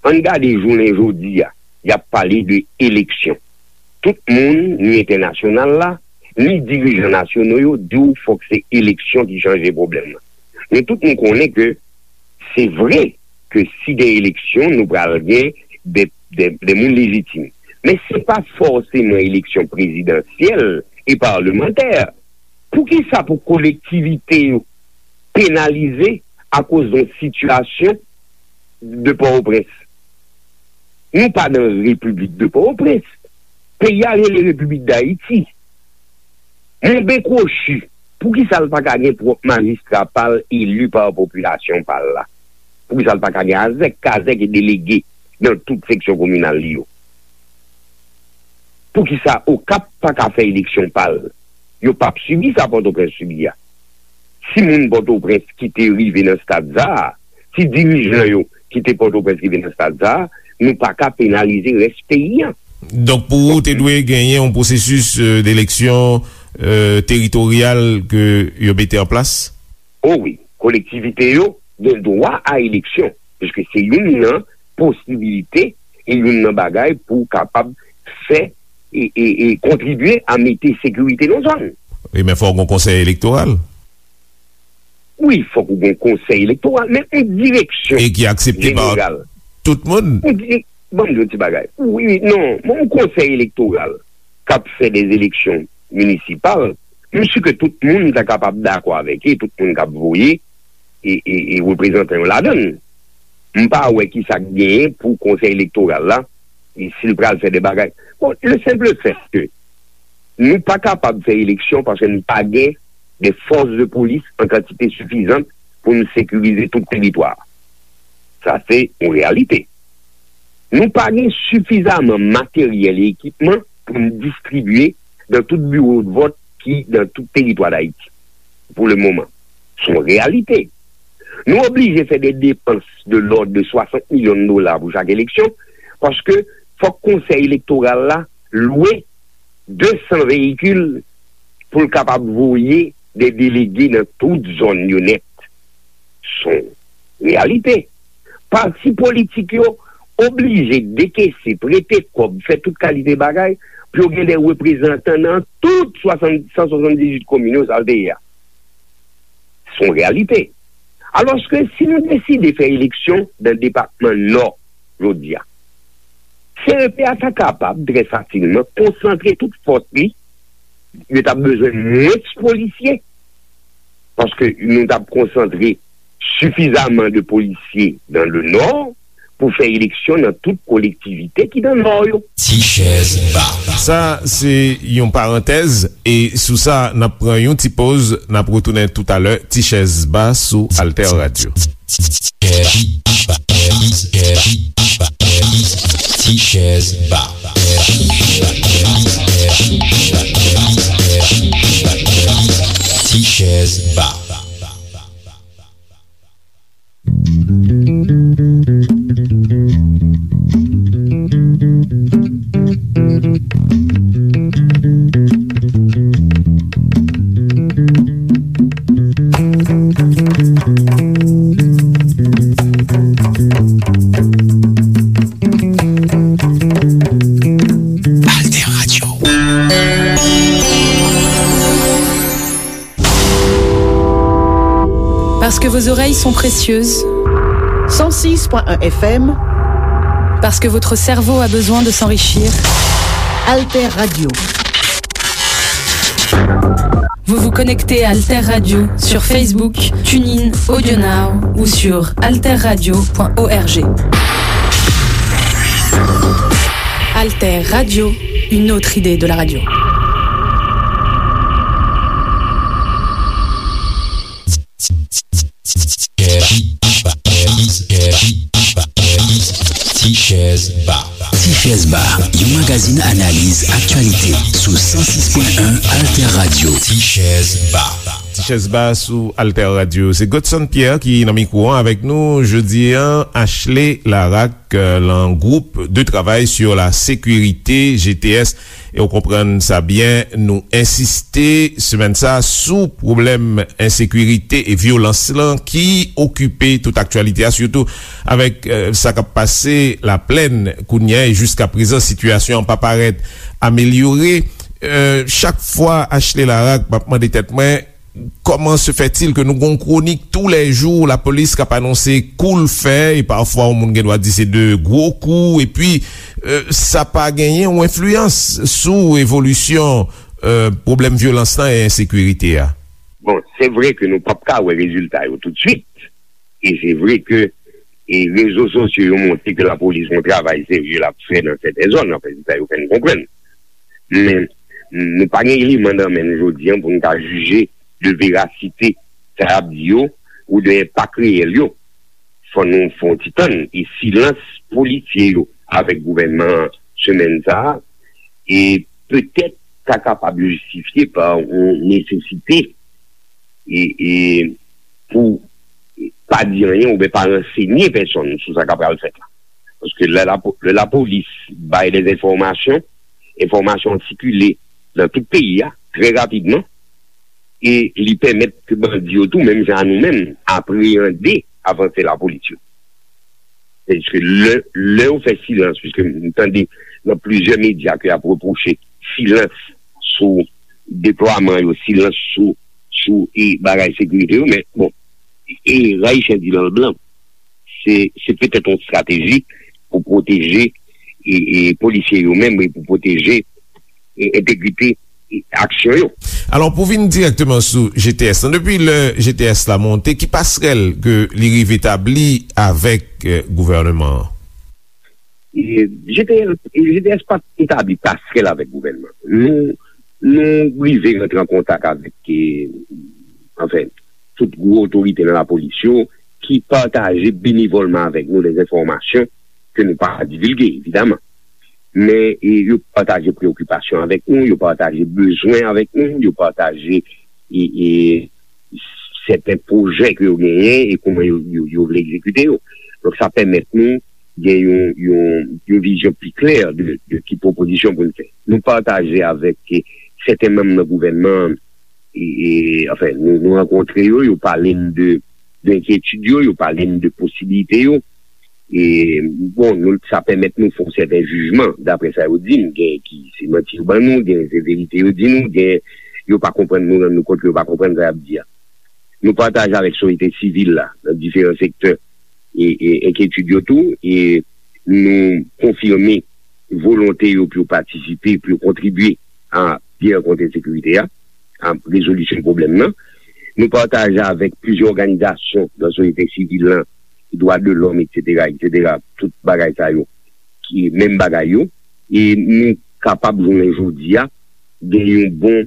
Ann gade jounen jodi a, y ap pale de eleksyon. Tout moun, ni entènasyonal la, ni dirijan nasyonal yo, di w fòk se eleksyon ki chanje pwoblèm nan. Men tout moun konnen ke se vre ke si gen eleksyon, nou pral gen de, de, de moun lejitim. Men se pa fòseman eleksyon prezidansyèl e palmantè. Poukisa pou kolektivite yo penalize akoz yon sitiyasyon de Pòtoprens? Nou pa nan Repiblik de Pòtoprens. Peyi a rele Repiblik Dayiti. Monben kwochi, poukisa l pa ka gen pwòp majistra pa l eli pa popilasyon pa l la? Poukisa l pa ka gen azèk, kazèk e delege nan tout seksyon kominal li yo? Poukisa Okap pa ka fè eleksyon pa l? Yo p ap sibi sa Pòtoprens sibi a. Si moun Pòtoprens ki te rive nan stad sa a, si dirijan yo ki te Pòtoprens rive nan stad sa a, nou pa ka penalize rès peyi a. Donk, pou ou, te dwe genyen yon pwosesis, euh, d'eleksyon, euh, teritoryal ke yo mete an plas? O wi, kolektivite yo gen dwa a eleksyon, piske se youn nan posibilite e youn nan bagay pou kapab fè e, e, e kontribye a mete sekirite nan zòn. Wi, men fòk gon konsèy elektoral. Wi, fòk ou gon konsèy elektoral, men yon direksyon jeneral. E ki aksepte pa tout moun. Yon di-, ban m di yon ti bagay. Wi, non, men yon konsèy elektoral k ap fè de eleksyon minisipal, m si ke tout moun ta kapab dakò avèk li, tout moun k ap voye e, e, e reprezantan yo ladan l. M pa wè ki sa k genyen pou konsèy elektoral la, e si l pral fè de bagay. Bon, le simple fait que nou pa kapab fè eleksyon paske nou pa gen de fòs de polis an kantite sifizan pou nou sekirize tout teritwa a. Sa se yon reyalite. Nou pa gen sifizaman materyèl e ekipman pou n distribye nan tout biwo de vòt ki nan tout teritwa Dayiti pou le moman. Se yon reyalite. Nou oblije fè de depans de lòd de swasant milyon dola pou chak eleksyon, paske fòk konsèy elektoral la lwe de san veyikil pou l kapab voye de delege nan tout zòn yo nèt. Se yon reyalite. Pati politik yo oblije dekese, prete kòb, fè tout kalite bagay pou yo gen de reprezantan nan tout swasant, san swasanndizuit komin yo, sa l te ye a. Se yon reyalite. Alòske si nou deside fè eleksyon nan depatman Nò jodi a, C E P a ta kapab trè fasilman konsantre tout fòs li, yo t ap bezwen mwens polisye, paske nou t ap konsantre sifizaman de polisye dans le Nord pou fè eleksyon nan tout kolektivite ki nan Nò yo. Ti chèz ba. Sa se yon parantèz, e sou sa, n ap pran yon ti poz, n ap retounen toutalè. Ti chèz ba sou Alter Radio. Ti chèz ba. Ti chèz ba. Parce que vos oreilles sont précieuses. Cent six point un F M. Parce que votre cerveau a besoin de s'enrichir. Alter Radio. Vous vous connectez à Alter Radio sur Facebook, TuneIn, AudioNow ou sur alterradio point org. Alter Radio, une autre idée de la radio. Tichèz Ba. Tichèz Ba, yon magazin analiz aktyalite sou san sis pwen en Alter Radio. Tichèz Ba. Tichèz Ba sou Alter Radio. Se Godson Pierre ki nan mikwo an avèk nou jodi an, Ashley Laraque, euh, lan gwoup de travay sur la sécurité, G T S, e w konprann sa byen, nou ensiste semèn sa sou pwoblèm ensekirite e vyolans lan ki okipe tout aktyalite a, sitou avèk, euh, sa k ap pase Laplèn kounye a, e jiska prezan sitiyasyon an pa parèt amelyore. Euh, chak fwa, Ashley Laraque, m ap mande tèt mwen, comment se fait-il que nou gon kwonik toulèjou, lapolis k ap anonse kou l fè, e pafwa yon moun gen dwa di se de gwo kou, epi, euh, sa pa genyen yon enfliyans sou evolisyon, euh, pwoblèm vyolans lan e ensekirite a? Bon, se vre ke nou p ap ka wè rezilta yo toutswit, e se vre ke, e rezo sosyo yo montre ke lapolis gon travay serye l ap fè nan sèten zòn, anfen, se sa yo fè n konprann. Men, nou pa gen eleman nan men n jodi an pou n ka jije de verasite sa y ap di yo ou de enpak reyèl yo. Fò nou fè yon ti tann, e silans polisye yo avèk gouvènman an semèn sa a, e petèt ta kapab jistifye pa yon nesesite, e, e pou pa di anyen oubyen pa ransenye pèsonn sou sa k ap pral fèt la. Paske lè lapo-, lè lapolis bay de enfòmasyon, enfòmasyon an sikile nan tout peyi a trè rapidman, e li pèmèt ke bandi yo tou, menm jan a nou menm, apreyande avanse lapolis yo. Sètadi ke lè, lè yo fè silans, piske m tande nan plizyè medya ke y ap repwoche silans sou deplwaman yo, silans sou, sou, e, bagay sekirite yo, men, bon, e, Rayisyen di l an blan, se, se petèt yon estrateji pou pwoteje, e, e, polisye yo menm, e pou pwoteje, e, entegrite, e, aksyon yo. Alò, pou vin dirèkteman sou G T S lan, depi lè G T S la monte, ki pasrèl ke li rive tabli avèk, e, gouvènman an? E, G T S, e, G T S pa t etabli pasrèl avèk gouvènman. Nou, nou rive rantre an kontak avèk, e, anfen, tout gwo otorite nan lapolis yo ki pataje benevòlman avèk nou de enfòmasyon ke nou pa divilge, evidaman. Men, e, yo pataje preyokipasyon avèk nou, yo pataje bezwen avèk nou, yo pataje, e, e, sèten pwojè ke yo genyen e kòman yo, yo, yo vle egzekite yo. Donk, sa pèmèt nou gen yon, yon, yon vizyon pi klè de, de ki pwopozisyon pou n fè. Nou pataje avèk, e, sèten manm nan gouvènman an, e, e, anfen, nou, nou rankontre yo, yo pale n de, de enkyetid yo, yo pale n de posiblite yo. E, bon, nou, sa pèmèt nou fè yon sèten jijman, daprè sa yo di n, gen ki se manti yo ban nou, gen se verite yo di nou, gen yo pa konprann nou, rann nou kont ke yo pa konprann sa y ap di a. Nou pataje avèk sosyete sivil la, nan diferan sektè, e, e enkyetid yo tou, e nou konfime volonte yo pou yo patisipe, pou yo kontribye a byennèt kont ensekirite a, a rezolisyon pwoblèm nan. Nou pataje avèk plizyè òganizasyon nan sosyete sivil lan, dwa de lòm, etsetera, etsetera, tout bagay sa yo, ki menm bagay yo, e nou kapab jounen jodi a gen yon bon,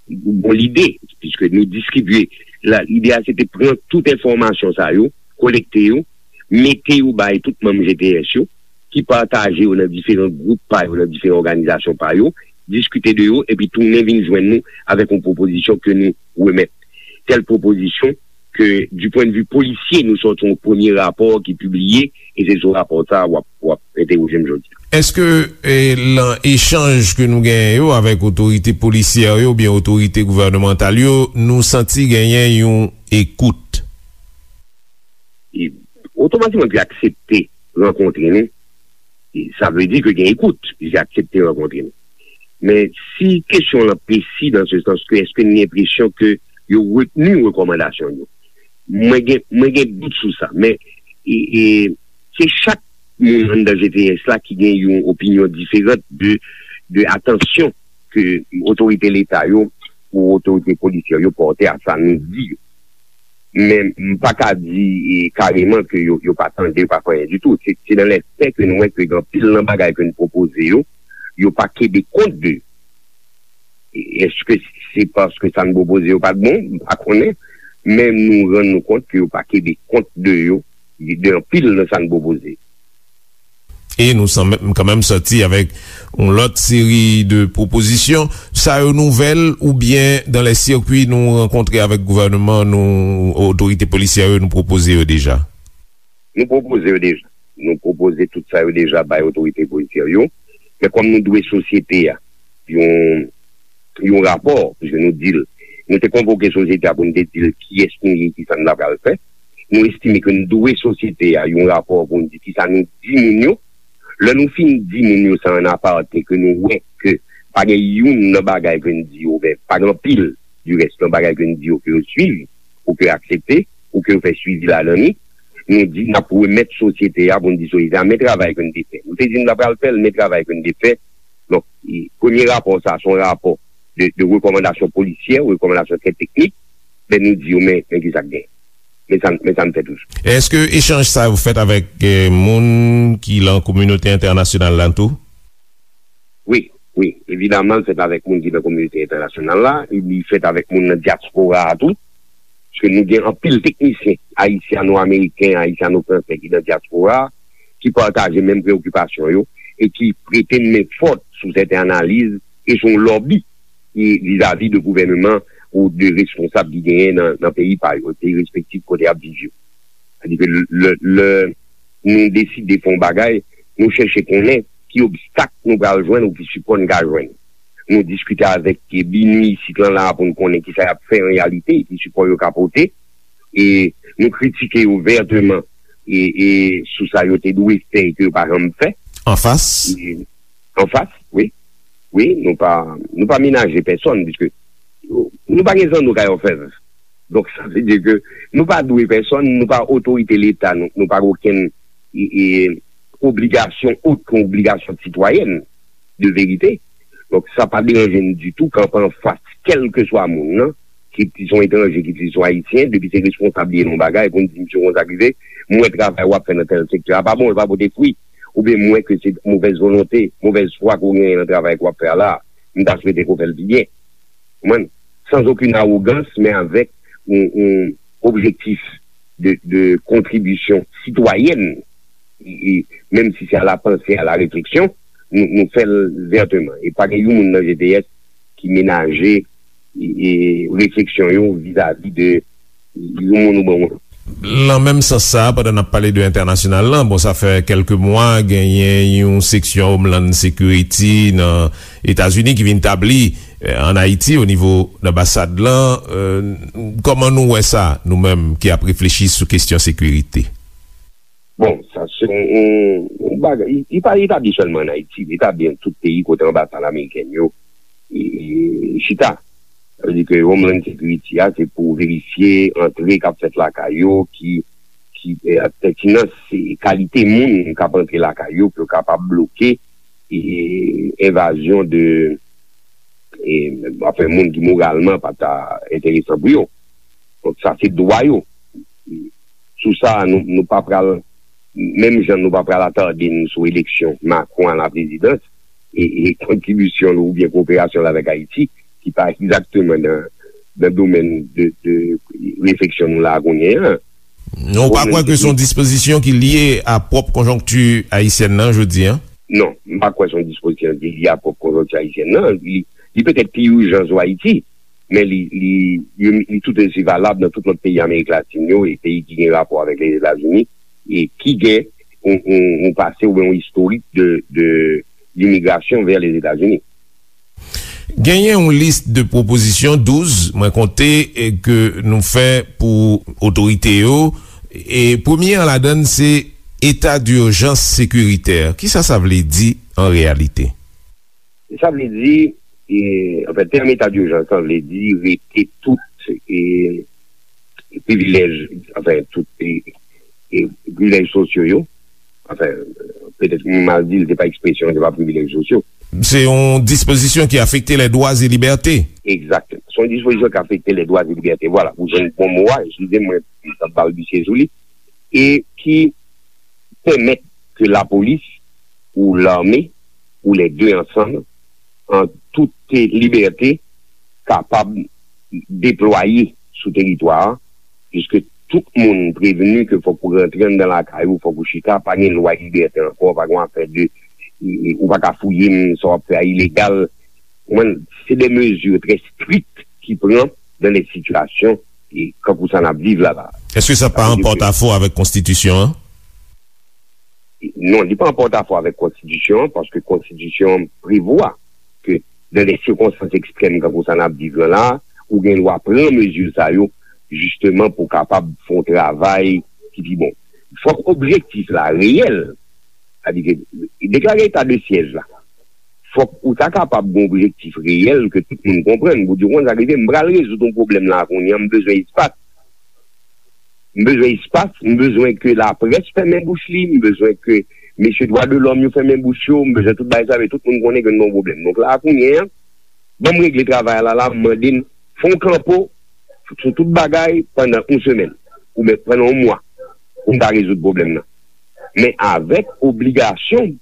yon bon lide, piske nou distribye. La, lide a se te pran tout enfòmasyon sa yo, kolekte yo, mete yo bay tout manm G T S yo, ki pataje yo nan diferan gwoup pa yo, nan diferan òganizasyon pa yo, diskite de yo, epi tounen vin jwenn nou avèk yon pwopozisyon ke nou remèt. Tèl pwopozisyon ke, du point de vue polisye, nou sòti yon premye rapò ki pibliye, e se sou rapò sa a w ap, w ap entèwoje m jodi a. Èske, e, lan echanj ke nou genyen yo avèk otorite polisyè yo oubyen otorite gouvènemantal yo, nou santi genyen yon ekout? E otomatikman, yo aksepte rankontre nou. E sa vle di ke gen ekout, yo aksepte rankontre nou. Men si kesyon w lan presi, dans le sens ke èske n gen enpresyon ke yo retni rekòmandasyon yo? Mwen gen, mwen gen dout sou sa, men e, e, se chak moun anndan G T S la ki gen yon opinyon diferan de, de atansyon ke otorite Leta yo ou otorite polisyè yo pòte a sa nou di yo. Men m pa ka di e, kareman ke yo, yo pa tande, yo pa fè anyen ditou. Se, se nan lèfè ke nou wè ke gen anpil nan bagay ke n pwopoze yo, yo pa kenbe kont de. Èske se paske sa n pwopoze yo pa t bon? M pa konnen. Men nou rann nou kont ke yo pa kenbe kont de yo, de anpil nan sa n pwopoze. E nou sanmenm kanmenm sòti avèk yon lòt seri de pwopozisyon. Sa yo nouvèl oubyen dan lè sirkwi nou rankontre avèk gouvènman nou, otorite polisyè yo, nou pwopoze yo deja? Nou pwopoze yo deja. Nou pwopoze tout sa yo deja bay otorite polisyè yo. Men kòm nou dwe sosyete a yon, yon rapò, piske nou di l, nou te konvoke sosyete a pou nou te di l kiyès nou ye, kisa n ta pral fè. Nou estime ke nou dwe sosyete a yon rapò pou nou di kisa nou di moun yo. Lè nou fin di moun yo sa an apate, ke nou wè ke pa gen youn nan bagay ke n di yo, oubyen pa gen anpil, dirès, nan bagay ke n di yo ke yo swiv, ou ke yo aksepte, ou ke yo fè swivi ladan li, nou di n ap remèt sosyete a pou n di sosyete a men travay ke n te fè. Nou te di n ta pral fè l, men travay ke n te fè. Donk, e, premye rapò sa a, se yon rapò de, de rekòmandasyon polisyè, rekòmandasyon trè teknik, men nou di yo men, men ki sa k genyen. Men sa, men sa n fè toujou. Èske echanj sa yo fèt avèk eh, moun ki lan kominote entènasyonal la tou? Wi, wi. Evidaman, l fèt avèk moun ki nan kominote entènasyonal la, e li fèt avèk moun nan dyaspora a tou. Paske nou gen anpil teknisyen ayisyano-ameriken, ayisyano-fransè ki nan dyaspora a, ki pataje menm preokipasyon yo e ki prete n men fòt sou sèten analiz e sou yon lòbi e vizavi de gouvèneman ou de responsab ki genyen nan, nan peyi pa yo, peyi respektif kote y ap viv yo. Sètadi ke lè, lè nou deside fè yon bagay, nou chèche konnen ki obstak nou pral jwenn ou ki sipò n ka jwenn. Nou diskite avèk BINUH isit lan la pou n konnen kisa y ap fè an reyalite, ki sipò yo ka pote. E nou kritike yo vèteman e, e sou sa yo te dwe fè e ke yo pa janm fè. Anfas? E, anfas, wi. Wi, nou pa, nou pa menaje pèsòn, piske nou pa gen zanno kay òfèv. Donk, sa vle di ke nou pa dwe pèsòn, nou pa otorite Leta, nou, nou pa gen okenn e, e, obligasyon, okenn obligasyon sitwayèn de verite. Donk, sa pa deranje n ditou kanpe anfas kèlkeswa moun nan, ki, ki se yon etranje, ki se yon ayisyen, depi se responsab li ye nan yon bagay, pou n di, "Mesye, konsa k rive, m wè travay w ap fè nan tèl sektè a pa bon, l pa pote fwi, oubyen m wè ke se movèz volonte, movèz fwa ke w genyen nan travay ke w ap fè a la, m ta swete ke w fè l pi byen." Konprann? Sans aucune arrogance, men avèk yon, yon objektif de, de kontribisyon sitwayèn, e, e, menm si se a la panse, a la refleksyon, nou, nou fè l vèteman. E pa gen yon moun nan G T S ki menaje, e, e, refleksyon yo vizavi de yon moun oubyen yon lòt. Lan menm sans sa a, pandan n ap pale de entènasyonal lan, bon, sa fè kèlke mwa, genyen yon seksyon Homeland Security nan Etazini ki vin tabli, eh, ann Ayiti, o nivo anbasad lan. Eh, kòman nou wè sa, nou menm ki ap reflechi sou kesyon sekirite? Bon, sa se yon, yon, yon bagay, li, li pa etabli sèlman ann Ayiti, li etabli nan tout peyi kote anbasad amerikèn yo, e, e, chita. Sa vle di ke Homeland Security a, se pou verifye antre k ap fèt lakay yo, ki, ki, e, pètinans, e, kalite moun k ap antre lakay yo, pou yo kapab bloke, e, envazyon de, e, anfen, moun ki moralman pa ta enteresan pou yo. Donk, sa se dwa yo. Sou sa, nou, nou pa pral, menm jan nou pa pral atade n sou eleksyon Macron a la prezidans, e, e kontribisyon l oubyen koperasyon l avèk Ayiti, ki pa egzakteman nan, nan domèn de, de refleksyon nou la kounye a. Non, ou pa kwè ke se yon dispozisyon ki lye a pwòp konjonkti ayisyèn nan jodi a? Non, m pa kwè se yon dispozisyon ki lye a pwòp konjonkti ayisyèn nan. Li, li petèt pi ijan sou Ayiti, men li, li, li, li tout osi valab nan tout lòt peyi Amerik Latin yo e peyi ki gen rapò avèk Lèzetazini e ki gen yon, yon, yon pase oubyen yon istorik de, de, dimigrasyon vè Lèzetazini. Genyen yon lis de pwopozisyon, douz, mwen konte, e ke nou fè pou otorite yo. E premye an ladan l, se eta dijans sekiritè. Kisa sa vle di an reyalite? Sa vle di, e, anfen, tèm eta dijans lan vle di rete tout, e, privilèj, anfen, tout e, e, privilèj sosyo yo. Anfen, petèt m mal di l, se pa ekspresyon, se pa privilèj sosyo. Se yon dispozisyon ki afekte les droits et libertés. Egzakteman. Se yon dispozisyon ki afekte les droits et libertés. Vwala, ou jwenn bon mo a, eskize m, mwen, m t ap balbisye sou li. E ki pèmèt ke lapolis ou lame ou lè de ansanm, an tout libète, kapab deplwaye sou teritwa a, piske tout moun prevni ke fòk ou rantre anndan lakay ou, fòk ou chita, pa gen lwa libète ankò, pa gen afè de, e, e, ou pa ka fouye m, sa w ap fè a ilegal. Ou konprann? Se de mezi trè strik ki pran dans les situations, e, kankou sa n ap viv la la. Èske sa pa an pòtafò avèk konstitisyon an? Non, li pa an pòtafò avèk konstitisyon an, paske konstitisyon an prevwa ke dans des circonstances extrêmes kankou sa n ap viv lan la, ou gen dwa pran mezi sa yo, jisteman pou kapab fè yon travay ki pi bon. Fòk objektif la reyèl, sètadi ke deklare eta de syèj la, fòk ou ta kapab gen objektif reyèl ke tout moun konprann, pou di, w konn sa k rive, m pral rezoud yon pwoblèm la kounye a, m bezwen espas. M bezwen espas, m bezwen ke laprès fèmen bouch li, m bezwen ke mesye dwa de lòm yo fèmen bouch yo, m bezwen tout bagay sa, men tout moun konnen ke n nan yon pwoblèm. Donk la, kounye a, ban m regle travay la, la, m mande n, fè yon kanpo sou tout bagay pandan yon semèn, oubyen pandan yon mwa, pou n ta rezoud pwoblèm nan. Men avèk obligasyon,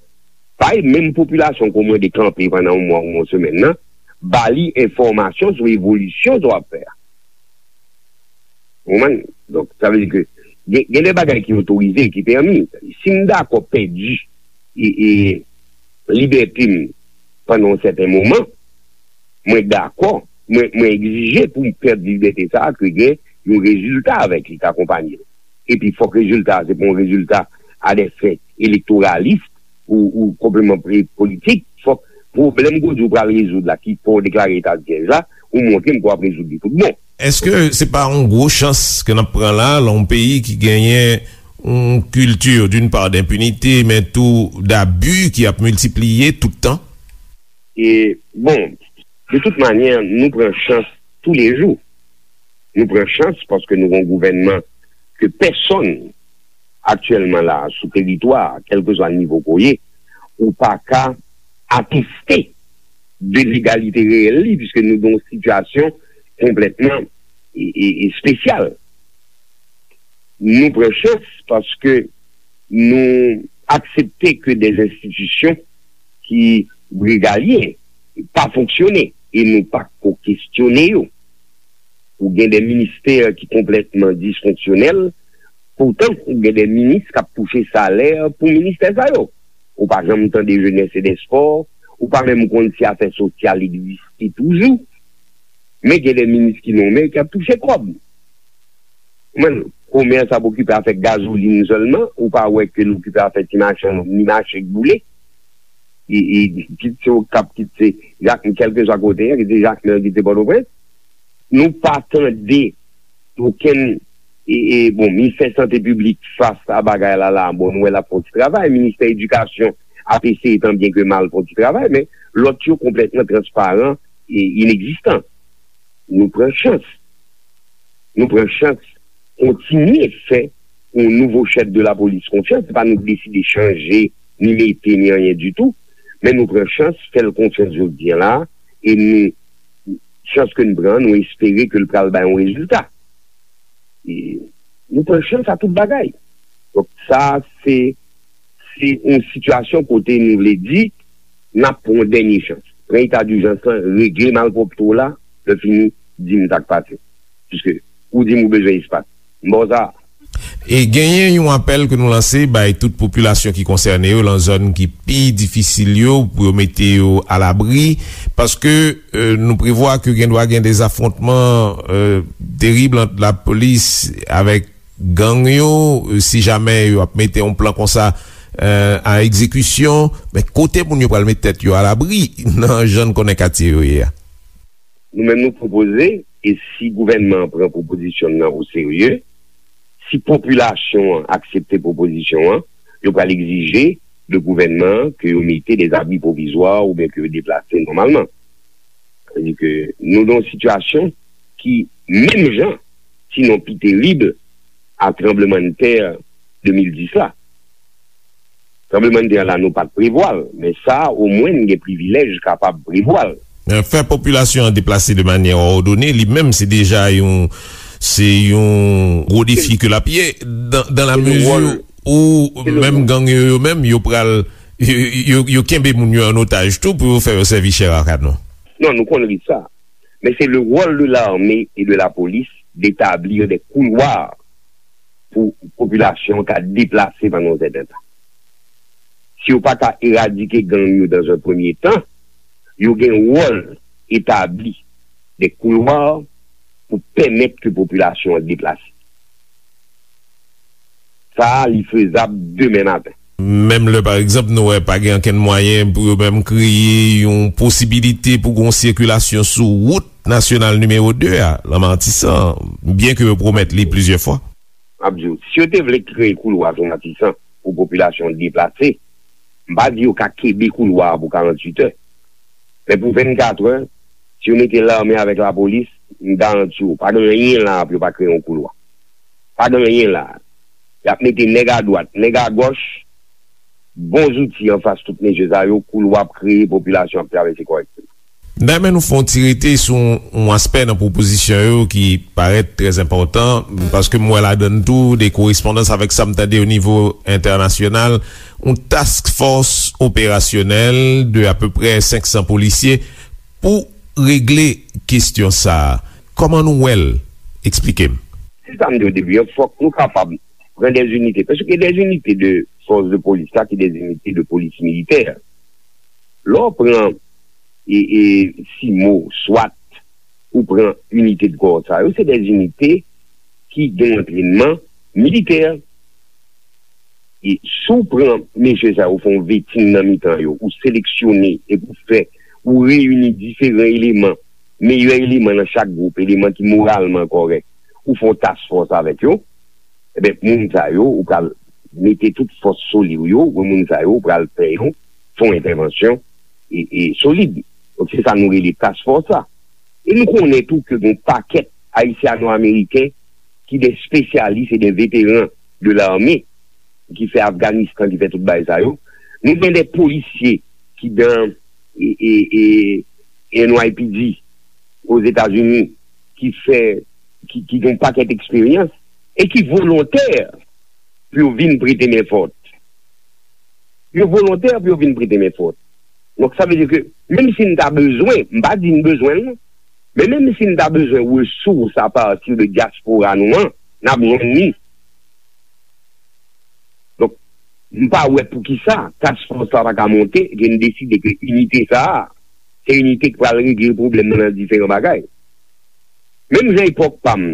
bay menm popilasyon ke w mande kanpe pandan yon mwa ou yon semèn nan, ba li enfòmasyon sou evolisyon sa w ap fè a. Ou konprann? Donk, sa vle di ke gen, gen de bagay ki otorize, ki pèmi. Si m dakò pèdi e, e, libète m pandan yon sèten moman, mwen dakò, mwen, mwen egzije pou m pèdi libète sa a, ke gen yon rezilta avèk li k akonpaye l. Epi fòk rezilta a, se pa yon rezilta a dè fen elektoralis ou, ou konpleman pre-, politik. Fòk pwoblèm ke w di w pral rezoud la, ki fè w deklare eta de syèj la, ou montre m ke w ap rezoud li tout bon. Èske se pa yon gwo chans ke n ap pran la, lan yon peyi ki genyen yon kilti, d'une part, d'inpinite, men tou d'abi ki ap miltipliye tout tan? E, bon, de tout manyè, nou pran chans toulejou. Nou pran chans paske nou gen yon gouvènman ke pèsonn aktyèlman la a, sou teritwa a, kèlkeswa nivo ke w ye, ou pa ka ateste de legalite reyèl li, piske nou gen yon sitiyasyon konplètman e, e, espesyal. Nou pran chans paske nou aksepte ke de enstitisyon ki regalyen pa fonksyone e nou pa ko kestyone yo. Ou gen de ministè ki konplètman disfonksyonèl, poutan ou gen de minis k ap touche salè pou ministè sa yo. Ou pa janm tande jenès e dèspò, ou pa menm konn si afè sosyal egziste toujou. Men gen de minis ki nonmen ki ap touche kòb. Mwen, komès ap okipe afè gazolin sèlman, ou pa wè ke l okipe afè ti machann, ni mache k boule. E, e, kit se Okap, kit se Jak, kèlkeswa kote, kit se Jakmèl, kit se Pòtoprens. Nou pa tande okenn, e, e, bon, ministè sante piblik fas a bagay la la, bon, nou wè l ap fè yon ti travay, ministè edikasyon ap eseye tan byen ke mal fè yon ti travay, men lòt yo konplètman transparan e inegzistan. Nou pran chans. Nou pran chans kontinye fè yon nouvo chèf de lapolis konfyans. Se pa nou ki deside chanje, ni mete, ni anyen ditou. Men nou pran chans, fè l konfyans jodi a la, e nou, chans ke n pran, nou espere ke l pral bay yon rezilta. E nou pran chans a tout bagay. Donk, sa, se, se yon sitiyasyon kote nou vle di, n ap pran yon dènye chans. Pran eta dijans lan, regle malpwòpte w la, lè fini, di m sa k pase. Piske, ou di m ou bezwen espas. M ba w sa. E genyen yon apèl ke nou lanse bay tout popilasyon ki konsène yo, lan zòn ki pi difisil yo, pou yo mete yo alabri, paske, e, nou prevwa ke gen dwa gen de zafwontman, e, terib ant lapolis avèk gang yo, e, si jamè yo ap mete yon plan konsa, e, a egzekisyon, men kote moun yo pral met tèt yo alabri nan jan n konnen katye yo ye a? Nou menm nou pwopoze, e si gouvènman an pran pwopozisyon n nan o serye, si popilasyon an aksepte pwopozisyon an, yo pral egzije de gouvènman an ke yo mete de zabri pwovizwa oubyen ke yo deplase nòmalman. Sa vle di ke nou nan yon sitiyasyon ki menm jan sinon pi terib, a tranblemanntè de mil dis la. Tranblemanntè la, nou pa t prevwa l, men sa a, omwen, n gen privilèj kapab prevwa l. Fè popilasyon an deplase de manyè òdone, li menm, se deja yon, se yon gwo defi ke l ap ye, dan, dan la mezi ou menm gang yo, yo menm, yo pral, yo, yo, yo kenbe moun yo an otaj tou pou yo fè yo sèvi chè a kanon. Non, nou konn risk sa. Men se le rôle de l'armée et de la police d'établir des couloirs pou popilasyon ka deplase pandan yon sèten tan. Si yo pa ka eradike gang yo dans un premier temps, yo gen wòl etabli de koulwa pou pèmèt ke popilasyon an deplase. Sa a, li fezab demen maten. Menm lè, pa egzanp, nou wè pa gen ankenn mwayen pou yo menm kreye yon posibilite pou gon sikilasyon sou wout nasyonal nimewo de a, nan Matisan, byen ke yo pwomèt li plizyè fwa. M ap di w, si yo te vle kreye koulwa sou Matisan pou popilasyon deplase, m pa di yo ka kenbe koulwa a pou karanntuit è. Men pou vennkat è, si yo mete lame avèk lapolis, m garanti w, pa gen anyen la pou yo pa kreye yon koulwa. Pa gen anyen la. Y ap mete nèg adwat, nèg agòch, bon zouti anfas tout mesye sa yo, koulwa ap kreye, popilasyon ap travèse kòrèkteman. Dayè, nou fè yon ti rete sou yon aspè nan pwopozisyon yo ki parèt trè enpòtan, paske m wè ladann tou de korespondans avèk sa m tande o nivo entènasyonal, yon task force operasyonèl de apeprè senk san polisye pou regle kesyon sa a. Kòman nou wè l? Eksplike m. Se sa m di o debi an, fòk nou kapab pran dè inite, paske dè inite de fòs de polis la, ki dè inite de polis militè. Lè w pran e, e, simo, swat, ou pran inite de kò sa yo, se dè inite ki gen antrènman militè. E si w pran mesye sa yo, fè yon veting nan mitan yo, ou seleksyone epi w fè, ou reyini diferan eleman, meyè eleman nan chak gwoup, eleman ki moralman kòrèk, ou fè yon task force avèk yo, ebyen, moun sa yo, ou pral mete tout fòs solid yo, ou moun sa yo, ou pral fè yo fè yon entèvansyon e, e solid. Donk, se sa nou rele task force la. E nou konnen tou ke gen pakèt Ayisyano-Ameriken ki de spesyalis e de veteran de lame, ki fè Afganistan, ki fè tout bagay sa yo. Nou gen de polisye ki dan e, e, e, N Y P D Ozetazini, ki fè, ki, ki gen yon pakèt eksperyans e ki volontè pou yo vin prete men fòt. Yo volontè pou yo vin prete men fòt. Donk, sa vle di ke, menm si n ta bezwen, m pa di n bezwen l, non, men menm si n ta bezwen resous apati de dyaspora nou an, n ap jwenn li. Donk, m pa wè poukisa task force la pa ka monte, ke n deside ke inite sa a, se inite ki pral regle pwoblèm nan nan diferan bagay. Menm jan epòk pa m,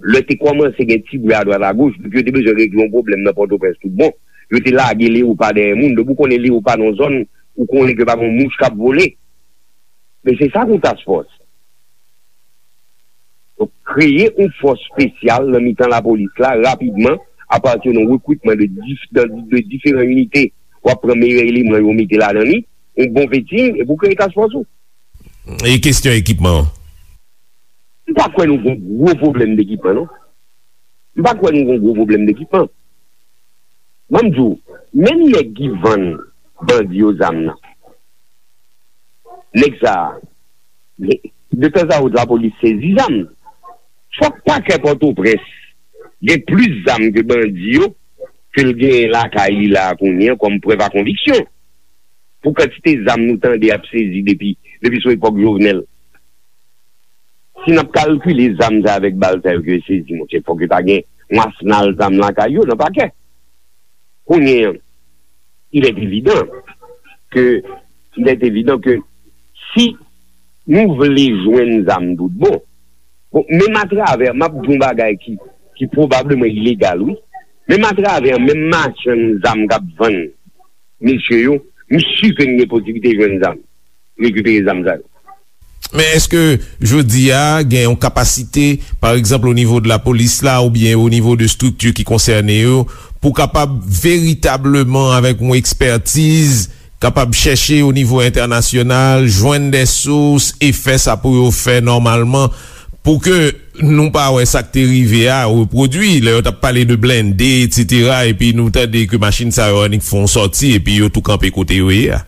lè te kòmanse gen ti bri adwat agoch, donk yo te bezwen regle yon pwoblèm nan Pòtoprens tout bon. Yo te lage leyopa dèyè moun. Depi w konnen leyopa nan yon zòn, ou konnen ke pa gen yon mouch k ap vole. Men se sa k yon task force. Donk, kreye yon fòs espesyal nan mitan lapolis la, rapidman, apati de yon rekritman de dif-, de, de diferan inite. W ap pran meyè eleman yo mete ladan li, yon bon veting, epi w kreye task force ou. E kesyon ekipman an? M pa kwè nou gen gwo pwoblèm dekipman, non. M pa kwè nou gen gwo pwoblèm dekipman. Ban m di w, menm nèg ki vann bandi yo zam nan, nèg sa a, de tanzantan lapolis sezi zam. Fòk pakè Pòtoprens gen plis zam ke bandi yo, ke l genyen lakay li la a kounye a kòm prèv a konviksyon. Pou kantite zam nou tande ap sezi depi, depi sou epòk Jovenel. Si n ap kalkile zam sa avèk bal sa yo ke yo sezi, monchè, fòk yo ta gen yon asnal zam lakay yo nan pakè. Kounye a, il est évident que, il est évident que si nou vle jwenn zam tout bon, bon, menm atravè, m ap di yon bagay ki, ki pwobableman ilegal, wi, menm atravè, menm machann zam k ap vann mesye yo, m si ke n gen posiblite jwenn zam, rekipere zam sa yo. Men èske jodi a gen yon kapasite, pa egzanp, o nivo de lapolis la oubyen o nivo de estrikti ki konsène yo, pou kapab veritableman, avèk yon ekspètiz, kapab chèche o nivo entènasyonal, jwenn de sous e fè sa pou yo fè nòmalman, pou ke nou pa wè sa k te rive a repwodui, lè yo t ap pale de blende, etsetera, epi nou tande ke machin sa yo annik fè yon sòti, epi yo tou kanpe kote yo ye a.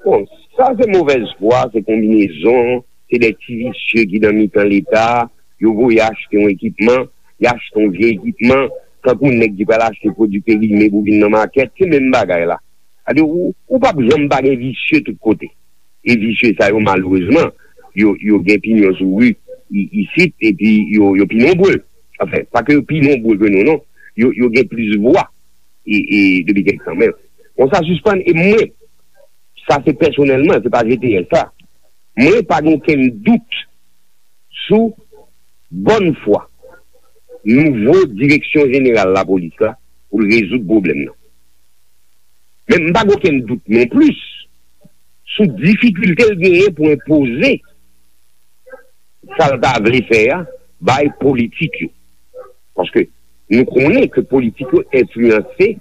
Bon, sa se movèz fwa, se konbinezon, se de ti visye ki nan mitan Leta, yo voye achte yon ekipman, y achte yon vye ekipman, tankou nèg ki pral achte pwodui perime pou vin nan makèt, se menm bagay la. Sa di, ou, ou p ap janm pa gen visye tout kote. E visye sa yo, malerezman, yo, yo gen pinyon sou ri i-, isit, epi yo, yo pi nonbre. Anfen, pa ke yo pi nonbre ke nou, non. Yo, yo gen plis vwa e, e depi kèk tan. Men, bon, sa sispann, e mwen, sa se pèsonèlman, se pa G T S sa. Mwen pa gen okenn dout sou bòn fwa nouvo direksyon jeneral lapolis la pou l rezoud pwoblèm nan. Men m pa gen okenn dout non plis sou difikilte l genyen pou enpoze sa l ta vle fè a bay politik yo. Paske nou konnen ke politik yo enfliyanse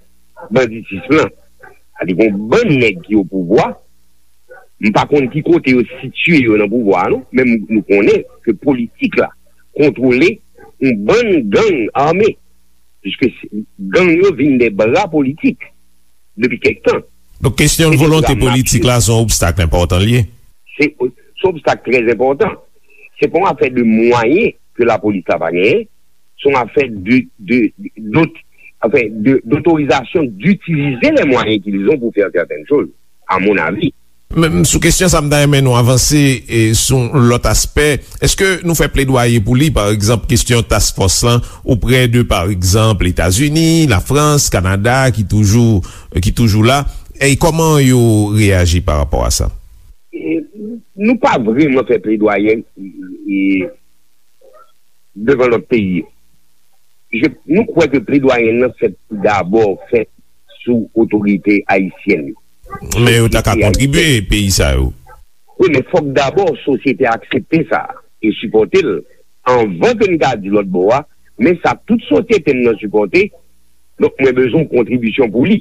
banditis lan. Sa di gon bann nèg ki o pouvwa, m pa konn ki kote yo sitiye yo nan pouvwa a non, men m, nou konnen ke politik la kontwole yon bann gang ame, piske se, gang yo vin de bra politik depi kèk tan. Donk, kesyon volonte politik la se yon obstak enpòtan l ye. Se, se yon obstak trè enpòtan. Se pa yon afè de mwayen ke lapolis la pa genyen, se yon afè de, de, de, dot-, anfen, de, d'autorisation d'utiliser les moyens qu'ils ont pour faire certaines choses, à mon avis. Men sou kesyon sa, m ta renmen nou avanse, e, sou yon lòt aspè. Èske nou fè pledwaye pou li, pa egzanp, kesyon task force lan, oprè de, pa egzanp, Etazini, Lafrans, Kanada, ki toujou, ki toujou la? E kòman yo reyaji pa rapò a sa? E, nou pa vrèman fè pledwaye, e, devan lòt peyi yo. Je, nou kwè ke pledwaye nan fèt pou dabò fèt sou otorite ayisyèn yo. Men yo ta ka kontribye, peyi sa yo. Wi, men fòk dabò sosyete a aksepte sa e sipòte l anvan ke n ka di lòt bò a, men sa tout sosyete m nan sipòte, donk mwen bezwen yon kontribisyon pou li.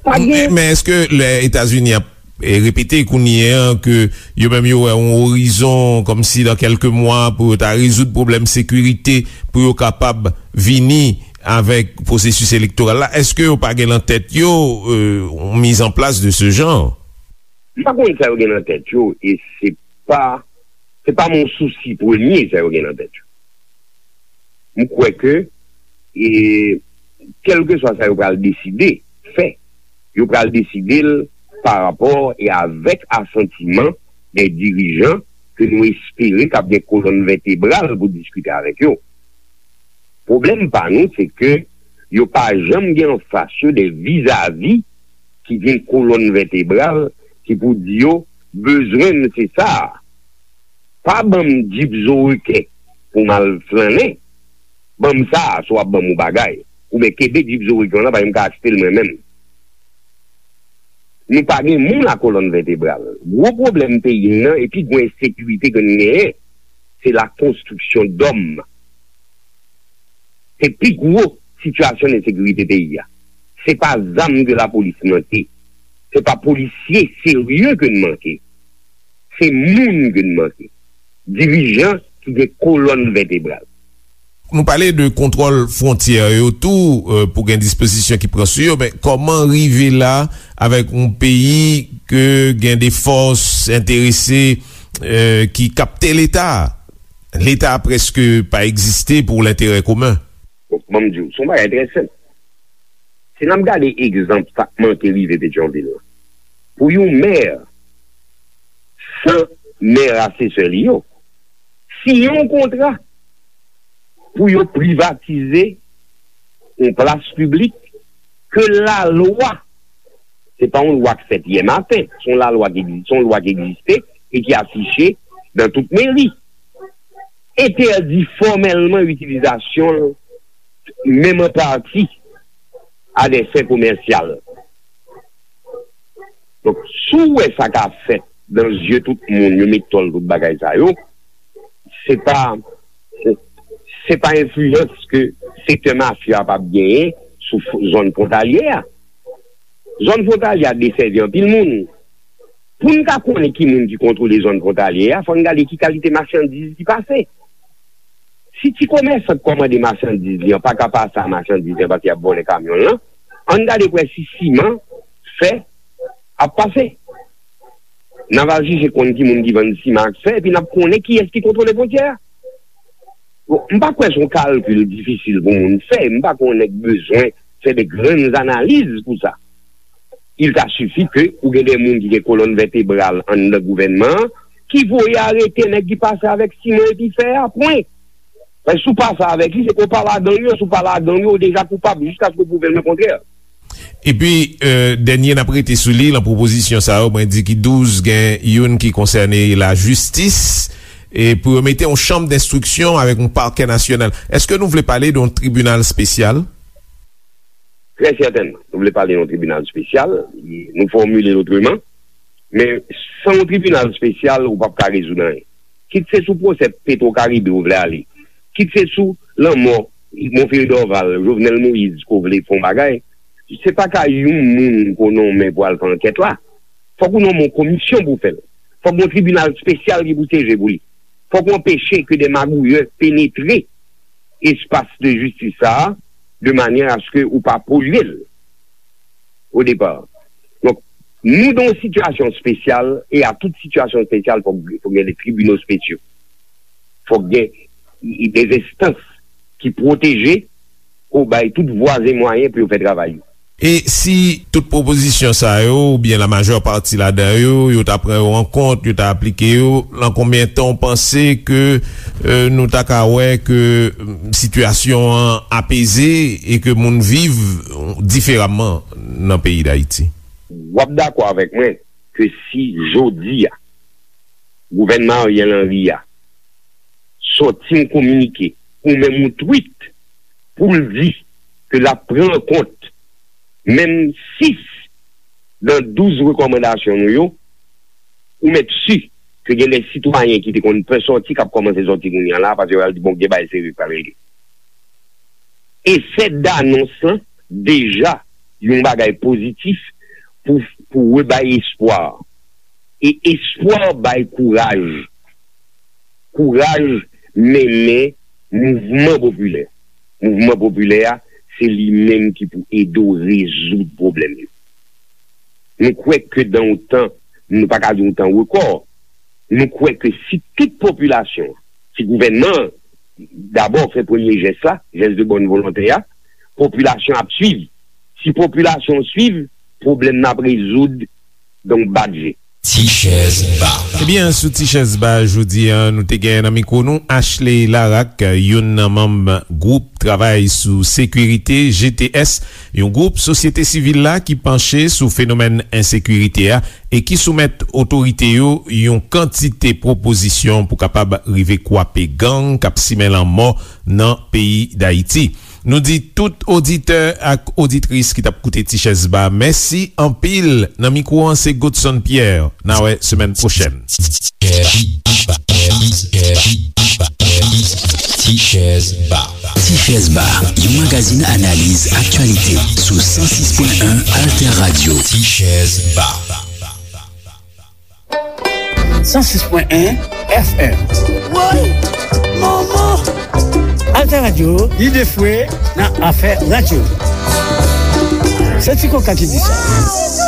Pa gen. Men, men èske lè Etazini ap, e, repete kounye a ke yo menm yo wè yon orizon kòmsi dan kèlke mwa pou yo ta rezoud pwoblèm sekirite, pou yo kapab vini avèk pwosesis elektoral la, èske yo pa gen nan tèt yo, e, yon mizanplas de se jan? M pa konn sa yo gen nan tèt yo, e se pa, se pa mon sousi premye sa yo gen nan tèt yo. M kwè ke, e, kèlkeswa sa yo pral deside fè, yo pral deside l pa rapò e avèk asantiman de dirijan ke nou espere k ap gen kolòn vètebral pou diskite avèk yo. Pwoblèm pa nou, se ke yo pa janm gen anfas yo de vizavi ki gen kolòn vètebral ki pou di yo, bezwen m se sa a. Pa ban m djip zo reken pou m al flannen. Ban m sa a, si w ap ban m yon bagay. Oubyen kenbe djip zo reken w lan, paske m ka achte l mwen menm. Nou pa gen moun a kolòn vètebral. Gwo pwoblèm peyi m nan, e pi gwo ensekirite ke n genyen, se la konstriksyon dòm. Se pi gwo sitiyasyon ensekirite peyi a. Se pa zam ke lapolis manke. Se pa polisye serye ke n manke. Se moun ke n manke. Dirijan ki gen kolòn vètebral. Nou pale de kontwòl fwontyè yo tou, e, pou gen dispozisyon ki pran sou yo, men kòman rive la avèk yon peyi ke gen de fòs enterese, e, ki kapte Leta? Leta prèske pa egziste pou lenterè komen. Bon, ban m di w, se yon bagay trè senp. Si n ap gade egzanp sa k manke rive Petyonvil la, pou yon mè, san mè asesè li yo, siyen yon kontra pou yo privatize yon plas piblik ke lalwa, se pa yon lwa k fèt yè maten, se yon lalwa ki egziste, se yon lwa ki egziste e ki afiche nan tout meri, entèdi fòmèlman itilizasyon l, menm an pati, a dè fen komèsyal. Donk, si w wè sa k ap fèt nan zye tout moun, yo met tòl tout bagay sa yo, se pa, se pa enfliyans ke sektè mafya a p ap genyen sou f-, zòn fwontalye a. Zòn fwontalye a desèvi anpil moun. Pou n ka konnen ki moun ki kontwole zòn fwontalye a, fò n gade ki kalite machandiz ki pase. Si komèsan k kòmande machandiz li an pa ka pase a machandiz li an paske y ap vòlè kamyon l lan, ann gade pou wè si siman, fè ap pase. N a va jije konn ki moun ki vann siman ak fè, epi n ap konnen kiyès ki kontwole fwontyè a. Bon, m pa kwè se yon kalkil difisil pou moun fè, m pa kwè yon nèg bezwen fè de grann analiz pou sa. Il ta sifi ke ou gen de moun ki gen kolòn vètebral anndan gouvènman an, ki voye arete nèg ki pase avèk siman epi fè a, pwen. Paske si w pase avèk li, se ke w pa ladan yo, si w pa ladan yo, ou deja koupab jiskaske w pwouve l kontrè. Epi, euh, dènye n ap rete sou li, nan pwopozisyon sa yo, mwen di ki douz, gen youn ki konsène lajistis, e pou yo mete yon chanm denstriksyon avèk yon pakè nasyonal. Èske nou vle pale de yon tribinal espesyal? Trè sètènman, nou vle pale de yon tribinal espesyal, nou fòmile l otreman, men san yon tribinal espesyal, ou p ap ka rezoud anyen. Kit se sou pwosè Petro Caribe ou vle ale, kit se sou lanmò Monferrier Dorval, Jovenel Moïse ke w vle fè yon bagay, se pa ka yon moun ke w nonmen pou al fè ankèt la. Fòk ou nonmen yon komisyon pou fè l. Fòk yon tribinal espesyal ki pou siyeje pou li. Fòk ou anpeche ke de magouyè penetre espas de jistis sa a, de manyè aske ou pa polye l o depa. Donk, nou dan yon sitiyasyon espesyal, e a tout sitiyasyon espesyal, fòk, fòk gen de tribinal espesyal. Fòk gen de enstans ki pwoteje, pou bay tout vwa e mwayen pou yo fè travay yo. E si tout pwopozisyon sa yo, oubyen la majè pati ladan yo, yo ta pran yo an kont, yo ta aplike yo, nan konbyen tan w panse ke, euh, nou ta ka wè ke, mm, sitiyasyon an apeze e ke moun viv diferaman nan peyi Dayiti? W ap dakò avèk mwen ke si jodi a, gouvènman Ariel Henry a sòti yon kominike, ou menm yon tweet, pou l di ke l ap pran an kont menm sis nan douz rekòmandasyon nou yo, ou mèt si ke gen de sitwayen ki te konn pè sòti, k ap kòmanse sòti kounye a la, paske yo al di, "Bon, gen bagay serye k pral regle." Efè danons lan deja yon bagay pozitif pou, pou rebay espwa. E espwa bay kouraj. Kouraj mennen mouvman popilè. Mouvman popilè a, se li menm ki pou ede w rezoud pwoblèm yo. Nou kwè ke dan yon tan, nou pa ka di yon tan rekò, nou kwè ke si tout popilasyon, si gouvènman an dabò fè premye jès la, jès de bòn volonte a, popilasyon ap swiv. Si popilasyon swiv, pwoblèm nan ap rezoud dan yon bat je. Ti chèz ba. Ebyen, sou Ti chèz ba jodi a, nou te gen nan mikwo nou Ashley Larac, youn nan manm gwoup travay sou sekirite, G T S, yon gwoup sosyete sivil la ki panche sou fenomèn ensekirite a e ki soumèt otorite yo yon kantite pwopozisyon pou kapab rive kwape gang k ap simen lanmò nan peyi Dayiti. Nou di tout oditè ak oditris ki t ap koute Ti Chèz Ba, mèsi anpil. Nan mikwo an, se Godson Pierre. N a wè semèn pwochèn. Ti Chèz Ba. Ti Chèz Ba, yon magazin analiz aktyalite sou san sis pwen en Alter Radio. Ti Chèz Ba. San sis pwen en F M. Woy! Manman! Alter Radio, lide fwe nan afè radyo. Se Ti Koka ki di sa.